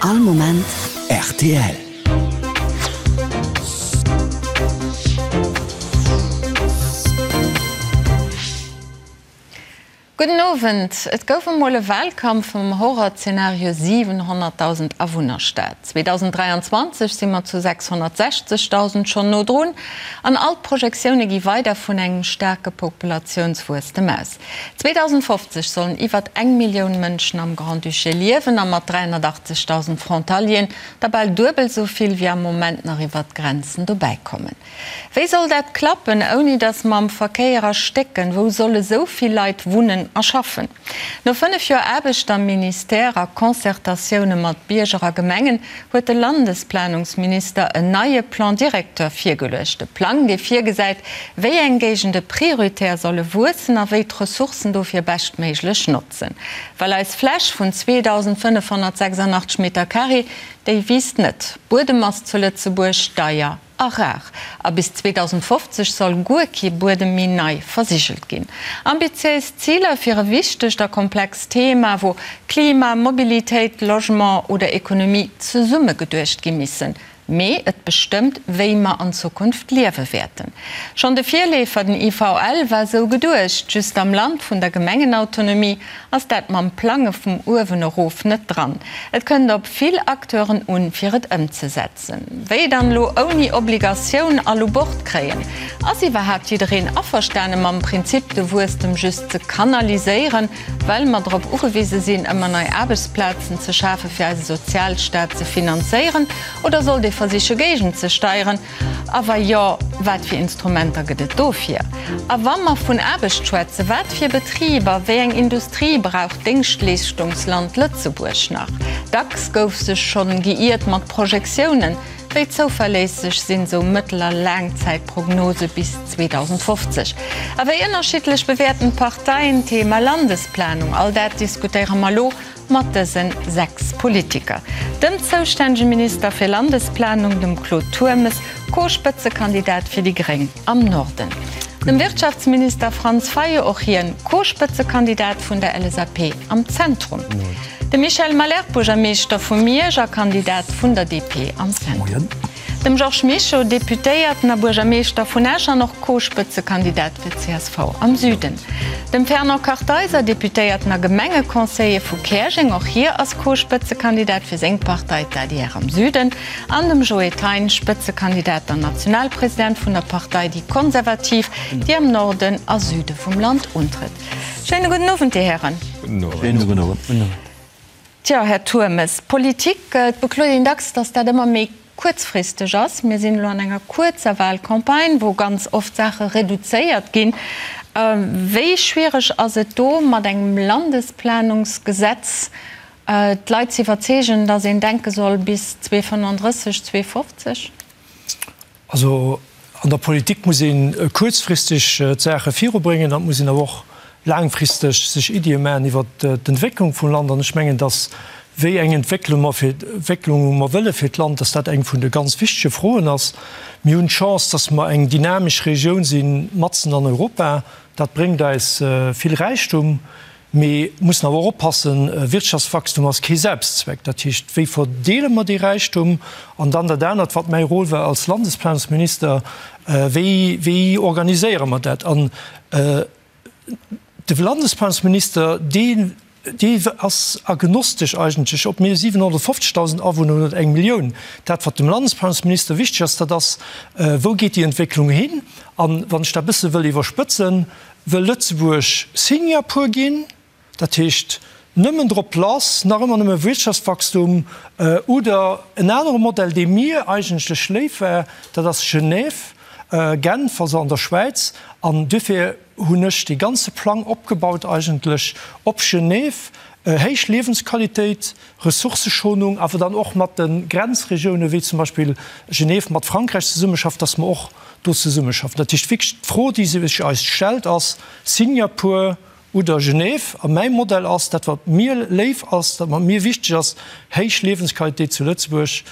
All Moment rtl. Gudden Owend. Et gouf emol e Wahlkampf mam Horrorzenario 700.000 Awunnerstad. 2023 si mer zu 660.000 schonn no drun an all d'Projektioune gi weider vun engem staarke Populatiounswuesstem aus. 2050 sollen iwwert eng Millioun Mënschen am Grand-Duché liewen a mat 380.000 Frontalieren der bal duebel esou vill wéi am Moment nach iwwert d'Grenzen dobäi kommen. Wéi soll dat klappen, ouni datt mer am Verkéier erstécken? Wou solle sou vill Leit wunnen a schaffen? No 5 Joer Aarbecht am Ministère a Concertatioune mat Bierger a Gemengen huet de Landesplanungsminister en neie Plan directeur virgeluecht. E Plang, dee virgesäit, wéi eng Géigende prioritär solle wuessen a wéi d'Ressourcen dofir beschtméiglech notzen. Well eis Fläch vun 2.586 Meter carré, déi wiisst net. Buedem ass zu Lëtzebuerg deier a rar. A bis 2050 soll guer kee Buedem méi nei versigelt ginn. Ambitiéis Ziler fir e wichtegt a komplext Thema, wou Klima, Mobilitéit, Logement oder Ekonomie zesumme geduecht gi missen. Mee et bestëmmt, wéi mer an Zukunft liewe wäerten. Schonn de Virleefer, den IVL, war esou geduecht. Just am Land vun der Gemengenautonomie ass dat mam Plange vum uewen erof net dran. Et kënnt op vill Acteuren un, fir et ëmzesetzen. Wéi dann elo ouni Obligatioun all u Bord kréien? Ass iwwerhaapt jiddereen averstane mam Prinzip de Wuesstem just ze kanaliséieren, well mer drop ugewise sinn ëmmer nei Aarbechtsplazen ze schafe fir eise Sozialstaat ze finanzéieren? Oder sollt ee versiche géigenzesteieren? A wa jo, wat fir Instrumenter gëtt et dofir? A wa mer vun Aarbecht schwätzen, wat fir Betriber, wéi eng Industrie brauch d'Déngschtleeschtungsland Lëtzebuerg nach? Dacks gouf sech schonn geiert mat Projektiounen. Wéi zouverléisseg sinn esou mëttel a Laangzäitprognose bis 2050? A wéi ënnerschiddlech bewäerten d'Parteien d'Thema Landesplanung? All dat diskutéiere mer elo Mat dësen 6 Politiker, dem zoustännege Minister fir Landesplanung, dem Claude Turmes, Co-Spëtzekandidat fir déi Gréng am Norden, dem Wirtschaftsminister Franz Fayot, och hien Co-Spëtzekandidat vun der LSAP am Zentrum, dem Michel Malherbe, Buergermeeschter vu Miersch a Kandidat vun der DP am Zentrum. Dem Georges Mischo, Deputéierten a Buergermeeschter vun Esch an och Co-Spëtzekandidat fir csv am Süden. Dem Fernand Kartheiser, Deputéierten a Gemengeconseiller vu Käerjeng, och hie ass Co-Spëtzekandidat fir seng Partei, d'ADR am Süden. An dem Joe Thein, Spëtzekandidat an Nationalpresident vun der Partei Déi Konservativ, déi am Norden a Süde vum Land untrëtt. Schéine gudden Owend, Dir Hären. Schéine gudden Owend. Tjo, Här Turmes, Politik, et bekloet een dacks, datt dat ëmmer méi kuerzfristeg ass. Mir sinn elo an enger kuerzer Wahlcampagne, wou ganz oft Saache reduzéiert ginn. Wéi schwiereg ass et do, mat engem Landesplanungsgesetz d'Leit ze iwwerzeegen, datt een denke soll bis 2035, 2050? Also an der Politik muss ee kuerzfristeg d'Saache virubréngen an et muss een awer och laangfristeg sech Iddie maachen iwwert d'Entwécklung vum Land. An ech mengen, datt wéi eng Entwécklung mer fir Entwécklung mer wëlle fir d'Land, datt dat eng vun de ganz wichtege Froen ass. Mir hunn d'Chance, datt mer eng dynamesch Regioun si matzen an Europa. Dat bréngt eis vill Räichtum. Mee mussen awer och oppassen, Wirtschaftswachstum ass kee Selbstzweck. Dat heescht, wéi verdeele mer dee Räichtum? An dann dat anert, wat mäi Rôle war als Landesplanungsminister, wéi, wéi organiséiere mer dat? An de Landesplanungsminister, dee, dee ass agnostesch eigentlech, ob mir 750.000 Awunner hunn oder eng Millioun. Dat, wat dem Landesplanungsminister wichteg ass, dat ass, wou geet déi Entwécklung hin? An wann ech dat e bësse wëll iwwerspëtzen, Wëll Lëtzebuerg Singapur ginn, dat heescht nëmmen drop lass, nach ëmmer nëmme Wirtschaftswachstum, oder en anere Modell, dee mir eigentlech léif war, dat ass Genève, Genf, also an der Schwäiz. An duerfir hunn ech dee ganze Plang opgebaut eigentlech op Genève, héich Liewensqualitéit, Ressourcëschonung, awer dann och mat de Grenzregiounen, wéi zum Beispill Genève mat Frankräich zesummeschafft, dass mer och do zesummeschaffen. Dat heescht wierklech, d'Fro, déi sech eis stellt, ass, Singapur. Oder Genève. A mäi Modell ass, dat wat mir léif ass, dat wat mir wichteg ass, héich Liewensqualitéit zu Lëtzebuerg,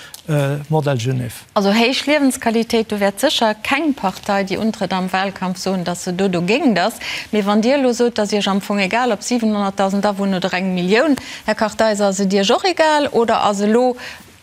Modell Genève. Also héich Liewensqualitéit, do wäert sécher keng Partei, déi untrëtt am Wahlkampf, soen, datt se do dogéint ass. Mee wann Dir elo sot, et ass Iech am Fong egal, ob 700.000 Awunner oder eng Millioun, Här Kartheiser, ass et Iech och egal oder ass elo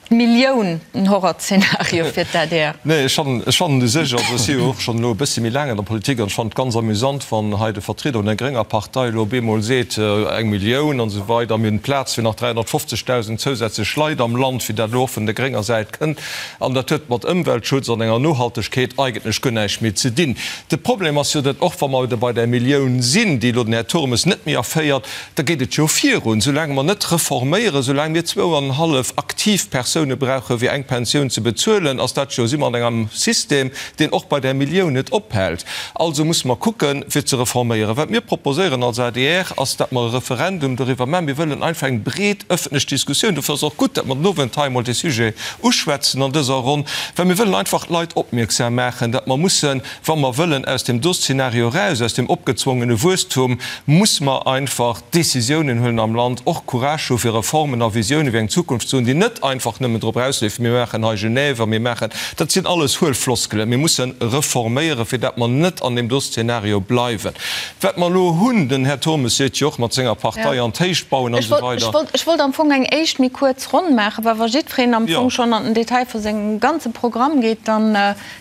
D'Millioun, en Horrorszenario fir d'ADR? Nee, ech fannen, ech fannen u sech, also ech si jo och schonn elo e bëssi méi laang an der Politik an ech fannen et ganz amüsant, wann hei de Vertrieder vun der grénger Partei elo op eemol seet, eng Millioun an esou weider, mir hunn Plaz fir nach 350.000 zousätzlech Leit am Land, wéi dat elo och vun der grénger Säit kënnt. An dat huet mat Ëmweltschutz an enger Nohaltegkeet eigentlech guer näischt méi ze dinn. De Problem ass jo, datt och wa mer bei där Millioun sinn, déi elo den Här Turmes net méi erféiert, Da geet et jo virun, soulaang mer net reforméieren, soulaang mir zwou an en hallef aktiv Persoune brauche fir eng Pensioun ze bezuelen, ass dat jo, si mer an engem System, deen och bei där Millioun net ophält. Also musse mer kucken, fir ze reforméieren. Wat mir proposéieren als adr, ass, datt mer e Referendum doriwwer maachen. Mir wëllen einfach eng breet ëffentlech Diskussioun. Dofir ass et och gutt, datt mer den Owend hei emol dee Sujet uschwätzen an dëser Ronn, well mir wëllen einfach d'Leit opmierksam maachen, datt mer mussen, Wa mer wëllen aus deem do Szenario eraus, aus deem opgezwongene Wuesstum, muss mer einfach Décisiounen huelen am Land, och Courage hu fir Reformen a Visiounen fir eng Zukunft ze hunn, déi net einfach nëmmen drop erausleefen, mir maachen hei Genève a mir maachen, dat sinn alles huel Floskelen. Mir musse reforméieren, fir dat mer net an deem do Szenario bleiwen. Wat mer elo hunn, den Här Turmes seet jo och, mat senger Partei an d'Héicht bauen an esou weider. Ech wollt am Fong eng éischt méi kuerz Ronn maachen, well wa jiddwereen am Fong schonn an den Detail vu sengem ganze Programm geet, dann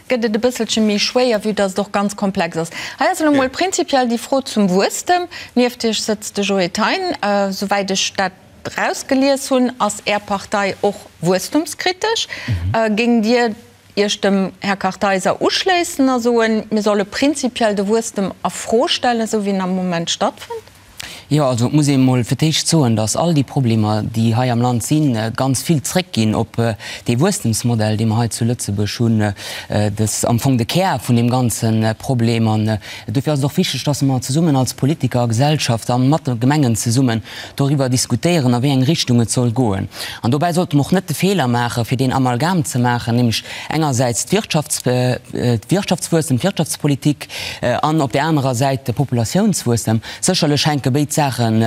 gëtt et e bësselche méi schwéier, vue dass et och ganz komplex ass. Hei ass elo mol prinzipiell déi Fro zum Wuesstem. Nieft Iech sëtzt de Joe Thein. Souwäit ech dat erausgelies hunn, ass Är Partei och wuesstumskritesch. Géingt Dir Iech dem Här Kartheiser uschléissen a soen, mir solle prinzipiell de Wuesstem a Fro stellen, esou wéi en am Moment stattfënnt? Jo, also et muss ee mol fir d'éischt soen, datt all déi Problemer, déi hei am Land sinn, ganz vill zréckginn op dee Wuesstemsmodell, dee mer hei zu Lëtzebuerg hunn. Dat ass am Fong de Kär vun deem ganze Problem. An dofir ass et och wichteg, datt mer zesummen als Politiker a Gesellschaft a mat de Gemengen zesummen doriwwer diskutéieren, a wéi eng Richtung et soll goen. An dobäi sollte mer och net de Feeler maachen, fir deen Amalgam ze maachen, nämlech engersäits d'Wirtschaftswuesstem, d'Wirtschaftspolitik an op där anerer Säit de Populatiounswuesstem. Sécherlech hänke béid Saachen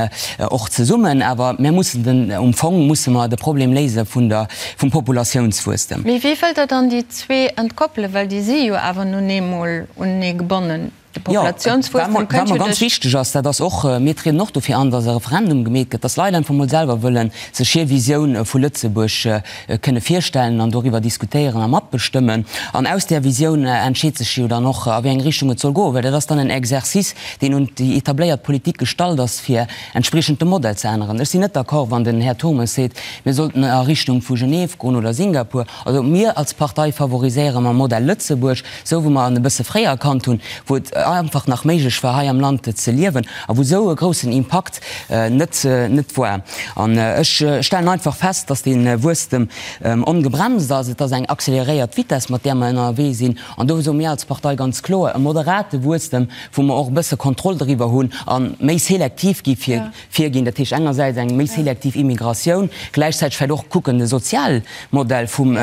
och zesummen, awer mir mussen den, um Fong musse mer de Problem léise vun der, vum Populatiounswuesstem. Mee wéi wëllt Der dann déi zwee entkoppelen, well déi si jo awer nun eemol unenee gebonnen? De Populatiounswuesstem kënnt jo duerch. Wat mer ganz wichteg ass, dat ass och, mir trieden och dofir an, datt e Referendum gemeet gëtt, datt d'Leit einfach mol selwer wëllen sech hir Visioun vu Lëtzebuerg kënne virstellen an doriwwer diskutéieren a matbestëmmen. An aus där Visioun entscheet sech jo dann och, a wéi eng Richtung et soll goen, well dat ass dann en Exercice, deen un déi etabléiert Politik gestallt ass, fir entspriechend de Modell ze änneren. Ech sinn net d'accord, wann den Här Turmes seet, mir sollten a Richtung vu Genève goen oder Singapur. Also mir als Partei favoriséiere mam Modell Lëtzebuerg, esou wou mer en e bësse fréier erkannt hunn, wou et einfach nach méiglech war, hei am Land ze liewen a wou esou e groussen Impakt net net war. An ech stellen einfach fest, dass dee Wuesstem ongebremst ass. Et ass eng accéléréiert Vitesse, mat där mer ënnerwee sinn. An do soe mir als Partei ganz kloer, e moderate Wuesstem, wou mer och e bësse Kontroll driwwer hunn a méi selektiv gi virginn, dat heescht engersäits eng méi selektiv Immigratioun, gläichzäiteg vläicht och kucken, de Sozialmodell vum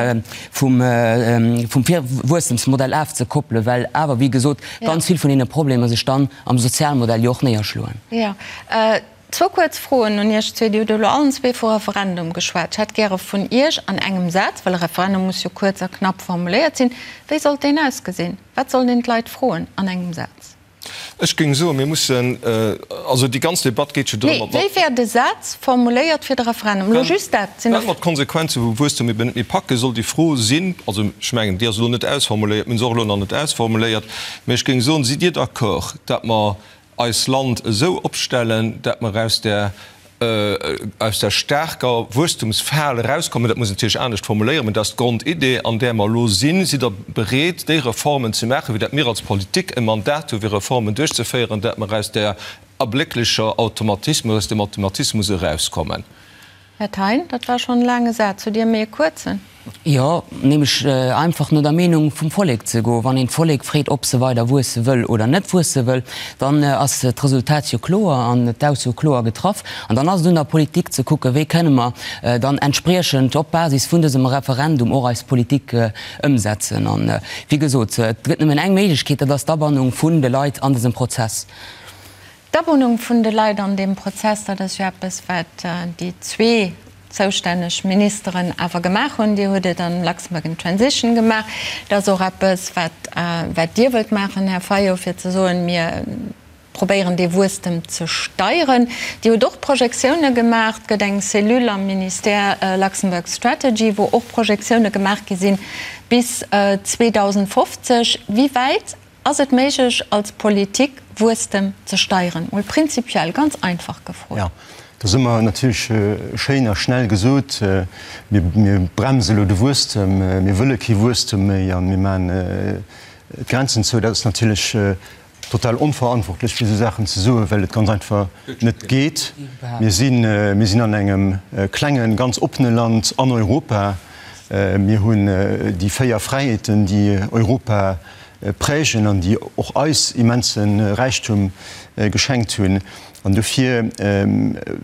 vum Wuesstemsmodell afzekoppelen, well awer, wéi gesot, ganz vill vun deene Problemer sech dann am Sozialmodell jo och néierschloen. Jo. Zwou kuerz Froen un Iech zwee. Dir hutt elo allen zwee vu Referendum geschwat. Ech hätt gäre vun Iech an engem Saz, well e Referendum muss jo kuerz a knapp formuléiert sinn, wéi sollt deen ausgesinn? Wat sollt een d'Leit froen an engem Saz? Ech géing soen, mir mussen, also déi ganz Debatt geet jo drëm, ob mer. Nee, wéi wär de Saz formuléiert fir de Referendum? Elo just dat. Well mer d'Konsequenze vum Wuesstum eben net méi packen, soll déi Fro sinn, also ech mengen, déi ass elo net ausformuléiert, mir hunn se och elo nach net ausformuléiert, mä ech géing soen, Sidd Dir d'accord, datt mer eis Land esou opstellen, datt mer aus där, aus där staarker Wuesstumsfal erauskommen? Dat muss een natierlech anescht formuléieren, mä dat ass d'Grondidee, an där mer elo sinn. Sidd Der bereet, déi Reformen ze maachen, wéi dat mir als Politik e Mandat hu fir Reformen duerchzeféieren, datt mer aus där erblécklecher Automatismus, aus dem Automatismus erauskommen? Här Thein, dat war schonn e laange Saz. Hutt Dir méi e kuerzen? Jo, nämlech einfach no der Meenung vum Vollek ze goen. Wann een d'Vollek freet, ob se weider wuesse wëll oder net wuesse wëll, dann ass d'Resultat jo kloer an d'Ausso kloer getraff. An dann ass et un der Politik ze kucken, wéi kënne mer dann entspriechend op Basis vun dësem Referendum och eis Politik ëmsetzen. An, wéi gesot, et gëtt nëmmen eng Méiglechkeet, dat ass d'Abannung vun de Leit an dësem Prozess. D'Abonnung vun de Leit an deem Prozess, dat ass jo eppes, wat déi zwee zoustänneg Ministeren awer gemaach hunn. Dir hutt et am Luxembourg in Transition gemaach. Dat ass och eppes, wat, wat Dir wëllt maachen, Här Fayot, fir ze soen, mir probéieren dee Wuesstem ze steieren. Dir hutt och Projektioune gemaach. Et gëtt eng Cellule am Ministère Luxembourg Strategy, wou och Projektioune gemaach gi sinn bis 2050. Wéi wäit Ass et méiglech als Politik Wuesstem ze steieren? Mol prinzipiell, ganz einfach gefrot. Jo, dat ass ëmmer natierlech schéin a schnell gesot, mir bremse elo de Wuesstem, mir wëlle kee Wuesstem méi a mir maachen d'Grenzen zou. Dat ass natierlech total onverantwortlech fir esou Saachen ze soen, well et ganz einfach net geet. Mir sinn, mir sinn an engem klengen, ganz oppene Land an Europa. Mir hunn déi 4 Fräiheeten, déi Europa prägen an déi och eis immense Räichtum geschenkt hunn. An dofir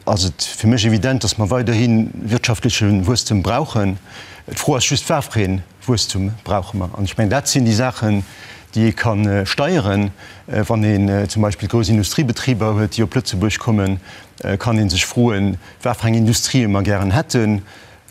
ass et fir mech evident, dass mer weiderhi wirtschaftleche Wuesstem brauchen. D'Fro ass just, Wat fir ee Wuesstum brauche mer? An ech mengen, dat sinn déi Saachen, déi ee ka steieren. Wann een zum Beispill grouss Industriebetriber huet, déi op Lëtzebuerg kommen, kann ee sech froen, wat fir eng Industrië mer gären hätten.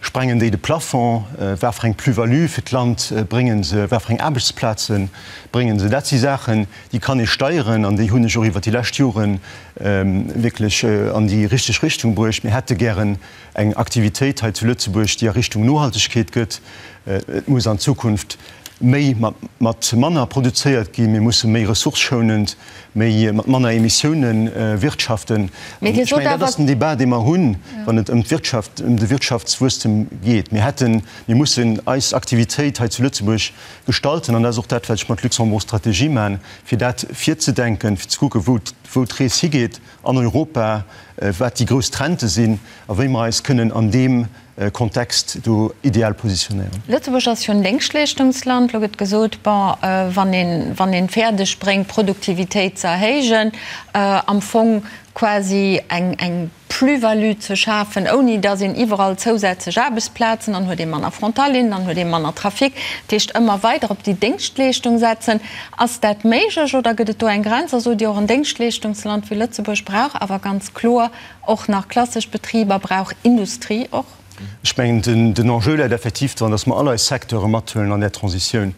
Sprengen déi de Plafond? Wat fir eng Plus-value fir d'Land bréngen se? Wat fir eng Aarbechtsplaze bréngen se? Dat si Saachen, déi kann ee steieren an déi hunn ech och iwwert déi lescht Jore wierklech an déi richteg Richtung bruecht. Mir hätte gären eng Aktivitéit hei zu Lëtzebuerg, déi a Richtung Nohaltegkeet gëtt. Et muss an Zukunft méi mat manner produzéiert ginn. Mir musse méi ressourcëschounend méi mat manner Emissioune wirtschaften. An ech mengen, dat ass den Débat, dee mer hunn, wann et ëm d'Wirtschaft, ëm de Wirtschaftswuesstem geet. Mir hätten, mir mussen eis Aktivitéit hei zu Lëtzebuerg gestalten, an dat ass och dat, wat ech mat Luxembourg Stratégie maachen, fir dat virzedenken, fir ze kucken, wou, wou d'Rees higeet an Europa, wat déi grouss Trendë sinn a wéi mer eis kënnen an deem Kontext do ideal positionéieren. Lëtzebuerg ass jo en Déngschtleeschtungsland. Lo gëtt gesot, bon, wann een, wann een fäerdeg bréngt, d'Produktivitéit ze erhéijen, am Fong quasi eng, eng Plus-value ze schafen, ouni datt een iwwerall zousätzlech Aarbechtsplazen, dann huet ee manner Frontalieren, dann huet ee manner Trafic, dat heescht ëmmer weider op déi Déngschtleeschtung setzen. Ass dat méiglech oder gëtt et do eng Grenz? A sot Dir och, en Déngschtleeschtungsland wéi Lëtzebuerg brauch awer ganz kloer Och nach klassesch Betriber brauch Industrie och. Ech mengen, den Enjeu läit effektiv dran, dass mer all eis Secteure mathuelen an där Transitioun.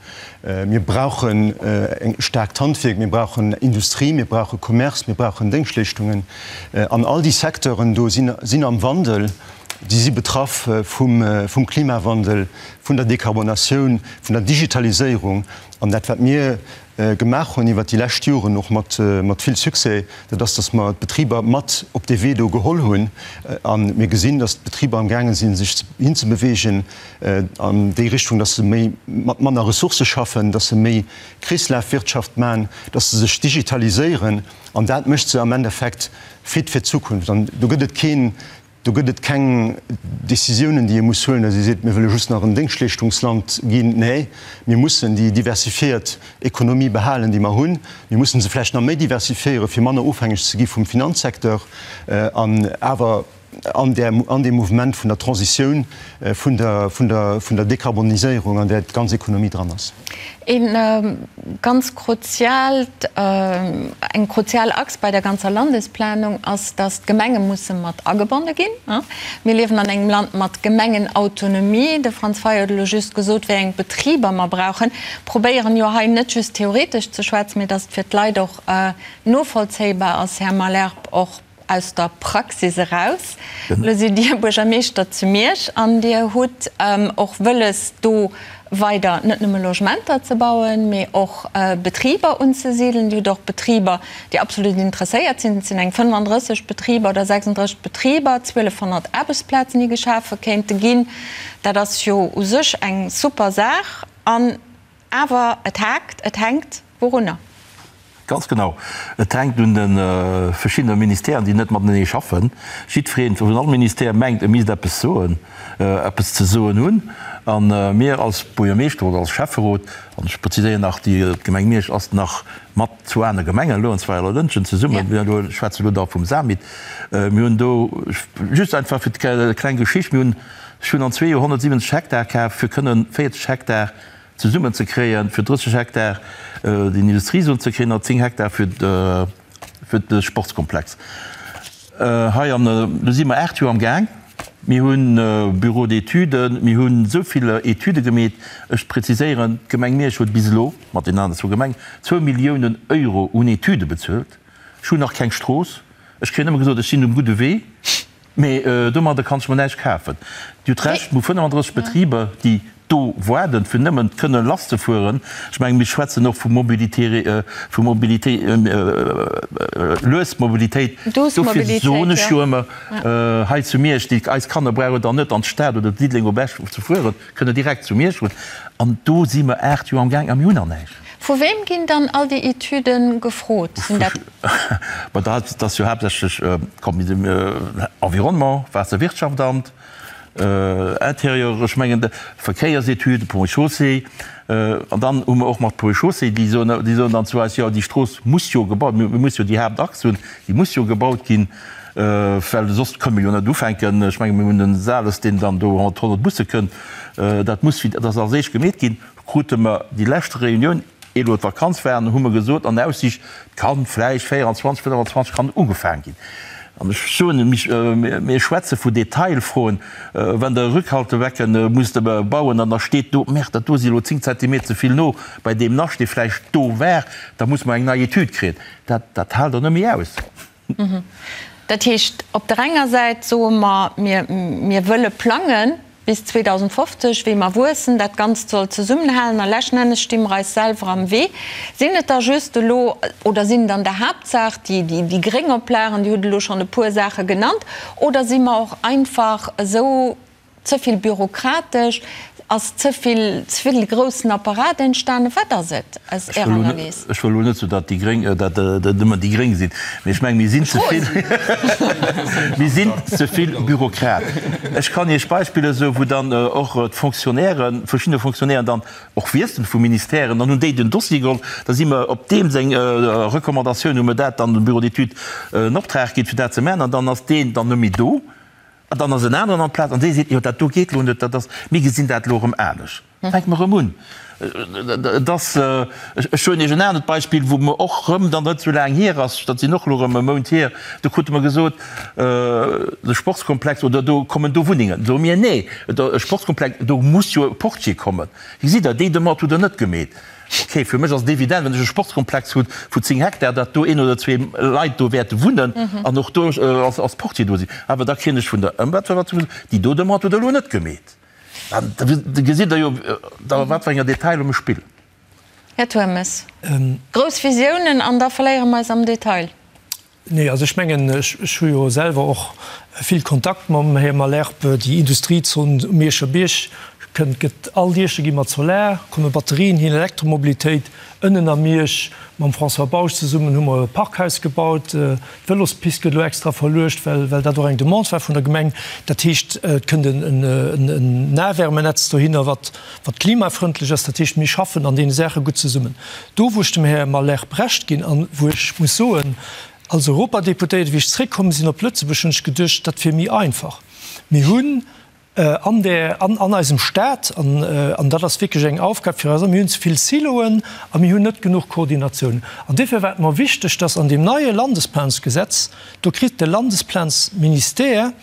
Mir brauchen e staarkt Handwierk, mir brauchen Industrie, mir brauche Commerce, mir brauchen Déngschtleeschtungen. An all déi Secteuren do sinn am Wandel, déi si betraff vum Klimawandel, vun der Dekarbonatioun, vun der Digitaliséierung. An dat, wat mir gemaach hunn iwwert déi lescht Joren, och mat vill Succès, dat ass, dass mer d'Betriber mat op dee Wee do geholl hunn. A mir gesinn, dass d'Betriber amgaange sinn, sech hinzebewegen an déi Richtung, dass se méi mat manner Ressourcë schaffen, dass se méi Kreeslafwirtschaft maachen, dass se sech digitaliséieren. An dat mécht se am Endeffekt fit fir d'Zukunft. An do gëtt et keen Do gëtt et keng Décisiounen, déi ee muss huelen, datt ee seet, mir wëlle just nach en Déngschtleeschtungsland ginn. Nee, mir mussen déi diversifiéiert Ekonomie behalen, déi mer hunn. Mir mussen se vläicht nach méi diversifiéieren, fir manner ofhängeg ze gi vum Finanzsecteur an awer an där, an deem Mouvement vun der Transitioun, vun der, vun der, vun der Dekarboniséierung, an där d'ganz Ekonomie dran ass. E ganz kruziaalt, eng kruzial Achs bei der ganzer Landesplanung ass, dass d'Gemenge musse mat agebonne ginn. Mir liewen an engem Land mat Gemengenautonomie. De Franz Fayot huet elo just gesot, wéi eng Betriber mer brauchen. Probéieren jo hei net just theoretesch ze schwätzen, mee dass et fir d'Leit och novollzéibar ass, Här Malherbe, och aus der Praxis eraus. Elo sidd Dir Buergermeeschter zu Miersch an Dir hutt och wëlles, do weider net nëmme Logementer ze bauen, mee och Betriber unzesidelen. Dir hutt och Betriber, déi absolut interesséiert sinn. Et sinn eng 35 Betriber oder 36 Betriber, 1.200 Aarbechtsplazen, déi geschafe kéinte ginn. Dat ass jo u sech eng super Saach. An Awer et haakt, et hänkt wourunner? Ganz genau. Et hänkt un de verschiddene Ministèren, déi net matenee schaffen. Jiddweree vun all Ministère mengt, e misst eppes soen, eppes ze soen hunn. A mir als Buergermeeschter oder als Schäfferot, an ech preziséieren nach, déi Gemeng Miersch ass nach mat zwou aner Gemengen elo, an zwar Lëntgen zesummen, mir elo schwätzen elo da vum SAMIT, mir hunn do, just einfach fir d'kleng Geschicht, mir hunn, ech hunn an zwee Joer 170 Hektar kaf, fir kënnen 40 Hektar zesummen ze kréien, fir 30 Hektar den Industriezon ze kréien an 10 Hektar fir. fir de Sportskomplex hei. An do si mer 8 Joer am Gaang. Mir hunn Bureau d'études, mir hunn esou vill Etüde gemeet. Ech preziséieren, d'Gemeng Miersch huet bis elo, mat den aneren zwou Gemengen, zwou Milliounen Euro un Etüde bezuelt. Ech hunn nach keng Strooss. Ech kréien ëmmer gesot, ech sinn um gudde Wee, mee domadder kann ech mer näischt kafen. Dir hutt Recht, mir hu 35 Betriber, déi do waarden, fir nëmmen kënne lasszefueren. Ech mengen, mir schwätzen och vu Mobilité, vu Mobilité, lues Mobilitéit. Dofir soen ech jo ëmmer hei zu Miersch, déi eis Kanner brauchen dann net an d'Stad oder Diddeleng op Esch ze fueren, kënne direkt zu Miersch fueren. An do si mer 8 Joer am Gaang a mir hunn nach näischt. Vu weem ginn dann all déi Etüde gefrot? Sinn dat. Ma dat ass jo haaptsächlech Environnement, Waasserwirtschaftsamt, Intérieur, ech mengen Verkéiersetüde, Ponts et Chaussées. An dann hu mer och mat Ponts et Chaussées, déi soen, déi soen dann zu eis, jo déi Strooss muss jo gebaut, mir muss jo déi Haaptachs hunn, déi muss jo gebaut ginn, well soss kënne mer jo net ufänken. Ech menge mir hunn den Sales, deen dann do mat 100 Busse kënnt, dat muss, dat ass als éischt gemeet ginn. Krute mer déi lescht Reunioun, ier elo d'Vakanz war, hu mer gesot an Aussiicht, et kann vläicht 24, 25 kann ugefaang ginn. An ech soen, mir schwätze vu Detailfroen, wann Der e Rückhaltebecken musst bauen an da steet do, Merde, dat do si elo 10 Zentimeter ze vill no bei deem Nascht, dee vläicht do war, da muss mer eng nei Etüd kréien. Dat, dat haalt Der net méi aus. Dat heescht, op der enger Säit soe mer, mir, mir wëlle plangen bis 2050, wéi mer wuessen, dat Ganzt soll zesummenhalen a leschten Ennes sti mer eis selwer am Wee. Sinn et da just elo, oder sinn et an der Haaptsaach déi, déi, déi gréng Oplagen, Dir hutt elo schonn e puer Saache genannt, oder si mer och einfach esou Ze vill bürokratesch? Ass ze vill, ze vill groussen Apparat entstanen? Wat ass et aus Ärer Analys? Ech wëll elo net soen, datt déi Gréng, datt et nëmmen déi Gréng sinn, mee ech mengen, mir sinn ze vill, mir sinn ze vill Bürokrat. Ech kann Iech Beispiller soen, wou dann och d'Fonctionnairen, verschidde Fonctionnairen dann och wiesselen vu Ministèren, dann hunn déi den Dossier geholl, da si mer op deem seng Recommandatioun hu mer dat dann dem Bureau d'études en Optrag ginn, fir dat ze maachen, an dann ass deen dann net méi do. An dann ass en aneren an d'Plaz an dee seet, jo dat do geet elo net, dat ass, mir gesinn dat elo erëm anescht. Fänke mer erëm un. Et ass, ech soen Iech en anert Beispill, wou mer och erëm dann net esou laang hier ass, dat sinn och elo erëm e Mount hier, do krute mer gesot, de Sportskomplex oder do kommen do Wunnengen. Soe mir, nee, e Sportskomplex, do muss jo e Portier kommen. Gesitt Der, déi Demande hutt Der net gemeet. Ok, fir mech ass et evident, wann ech e Sportskomplex hu vu 10 Hektar, datt do een oder zwee Leit do wäerte wunnen an och do als Portier do sinn. Awer da kréien ech vun der Ëmweltverwaltung gesot, déi do Demande hutt Der elo net gemeet. Da gesitt Der jo, a wat fir enger Detailer mir spillen. Här Turmes, grouss Visiounen an da verléiere mer eis am Detail. Nee, also ech mengen, ech hu jo selwer och vill Kontakt mam Här Malherbe. Déi Industriezon um Mierscher Bierg kënnt, gëtt all Dieche gi mat Solar, komme Batterien hin, Elektromobilitéit. Ënnen a Miersch mam François Bausch zesummen hu mer e Parkhaus gebaut. D'Vëlospist gëtt elo extra verluecht, well well dat och eng Demande war vun der Gemeng. Dat heescht, et kënnt en Nahwärmenetz dohinner, wat wat klimafrëndlech ass. Dat heescht, mir schaffen an deene Saache gutt zesummen. Do, wou ech dem Här Malherbe Recht ginn an wou ech muss soen, als Europadeputéierte, wéi ech zréckkomm sinn op Lëtzebuerg, hunn ech geduecht, dat wier méi einfach. Mir hunn an där, an, an eisem Stat, an, an dat ass wierklech eng Aufgab fir eis, mir hunn ze vill Siloen a mir hunn net genuch Koordinatioun. An duerfir war et mer wichteg, dass an deem neie Landesplansgesetz, do kritt de Landesplansministère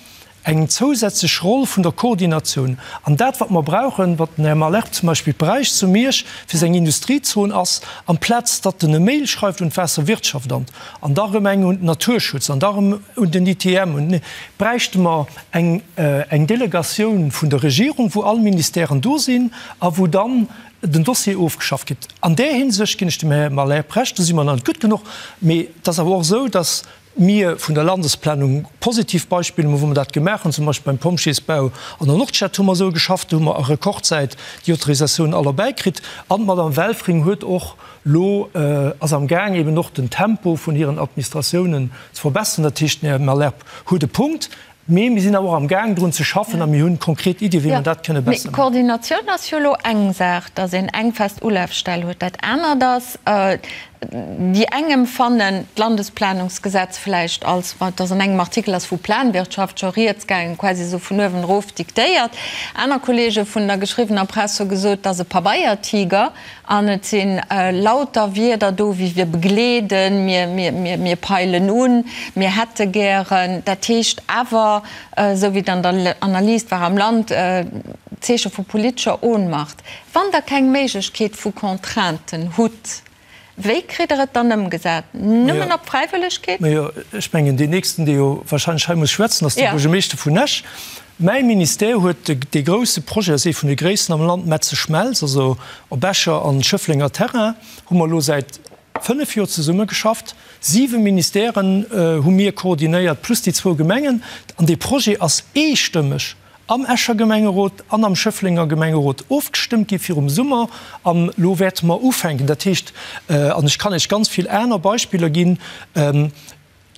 eng zousätzlech Roll vun der Koordinatioun. An dat, wat mer brauchen, wat den Här Malherbe zum Beispill bräicht zu Miersch fir seng Industriezon, ass, amplaz datt en e Mail schreift un d'Waasserwirtschaftamt an da erëm eng un den Naturschutz an da erëm un den ITM, un, bräichte mer eng, eng Delegatioun vun der Regierung, wou all Ministèren do sinn a wou dann den Dossier ofgeschafft gëtt. An där Hinsicht ginn ech dem Här Malherbe Recht, do si mer nach net gutt genuch. Mee et ass awer och esou, datt mir vun der Landesplanung positiv Beispiller hu wou mer dat gemaach hunn, zum Beispill beim Pompjeesbau an der Nordstad hu mer esou geschafft, do hu mer a Rekordzäit déi Autorisatioun all erbäikritt. An d'Madame Welfring huet och lo, ass am Gaang eben och den Tempo vun hiren Administratiounen ze verbessern. Dat heescht, den Här Malherbe huet e Punkt, mee mir sinn awer och am Gaang drun ze schaffen a mir hunn konkret Iddie wéi mer dat kënne besser maachen. Koordinatioun ass jo elo eng Saach, datt een eng fest Ulafstell huet. Dat anert ass. Déi eng emfannen d'Landesplanungsgesetz vläicht als, ma et ass an engem Artikel ass vu Planwirtschaft scho rieds gaangen, quasi esou vun uewen erof diktéiert. Aner Kollege vun der geschriwwener Press hu gesot, et ass e Pabeiertiger an et si lauter Wierder do wéi wir begleeden, mir, mir, mir, mir peilen un, mir hätte gären. Dat heescht awer, esou wéi et an der Analys war am Land, Zeeche vu politescher Ohnmacht. Wann Der keng Méiglechkeet vu Contrainten hutt, wéi kritt Der et dann ëmgesat? Nëmmen op Fräiwëllegkeet? Majo, ech mengen, deen nächsten, dee jo wahrscheinlech hei muss schwätzen, ass de Buergermeeschter vun Esch. Mäi Ministère huet dee grouse Projet, ass ee vun de gréissten am Land, Metze-Schmelz, also op Escher an Schëfflenger Terrain, hu mer elo säit 5 Joer zesummegeschafft. Siwe Ministèren hu mir koordinéiert, plus déi zwou Gemengen. An dee Projet ass eestëmmeg am Escher Gemengerot an am Schëfflenger Gemengerot ofgestëmmt gi virum Summer. An elo wäerte mer ufänken. Dat heescht, an ech kann Iech ganz vill aner Beispiller ginn,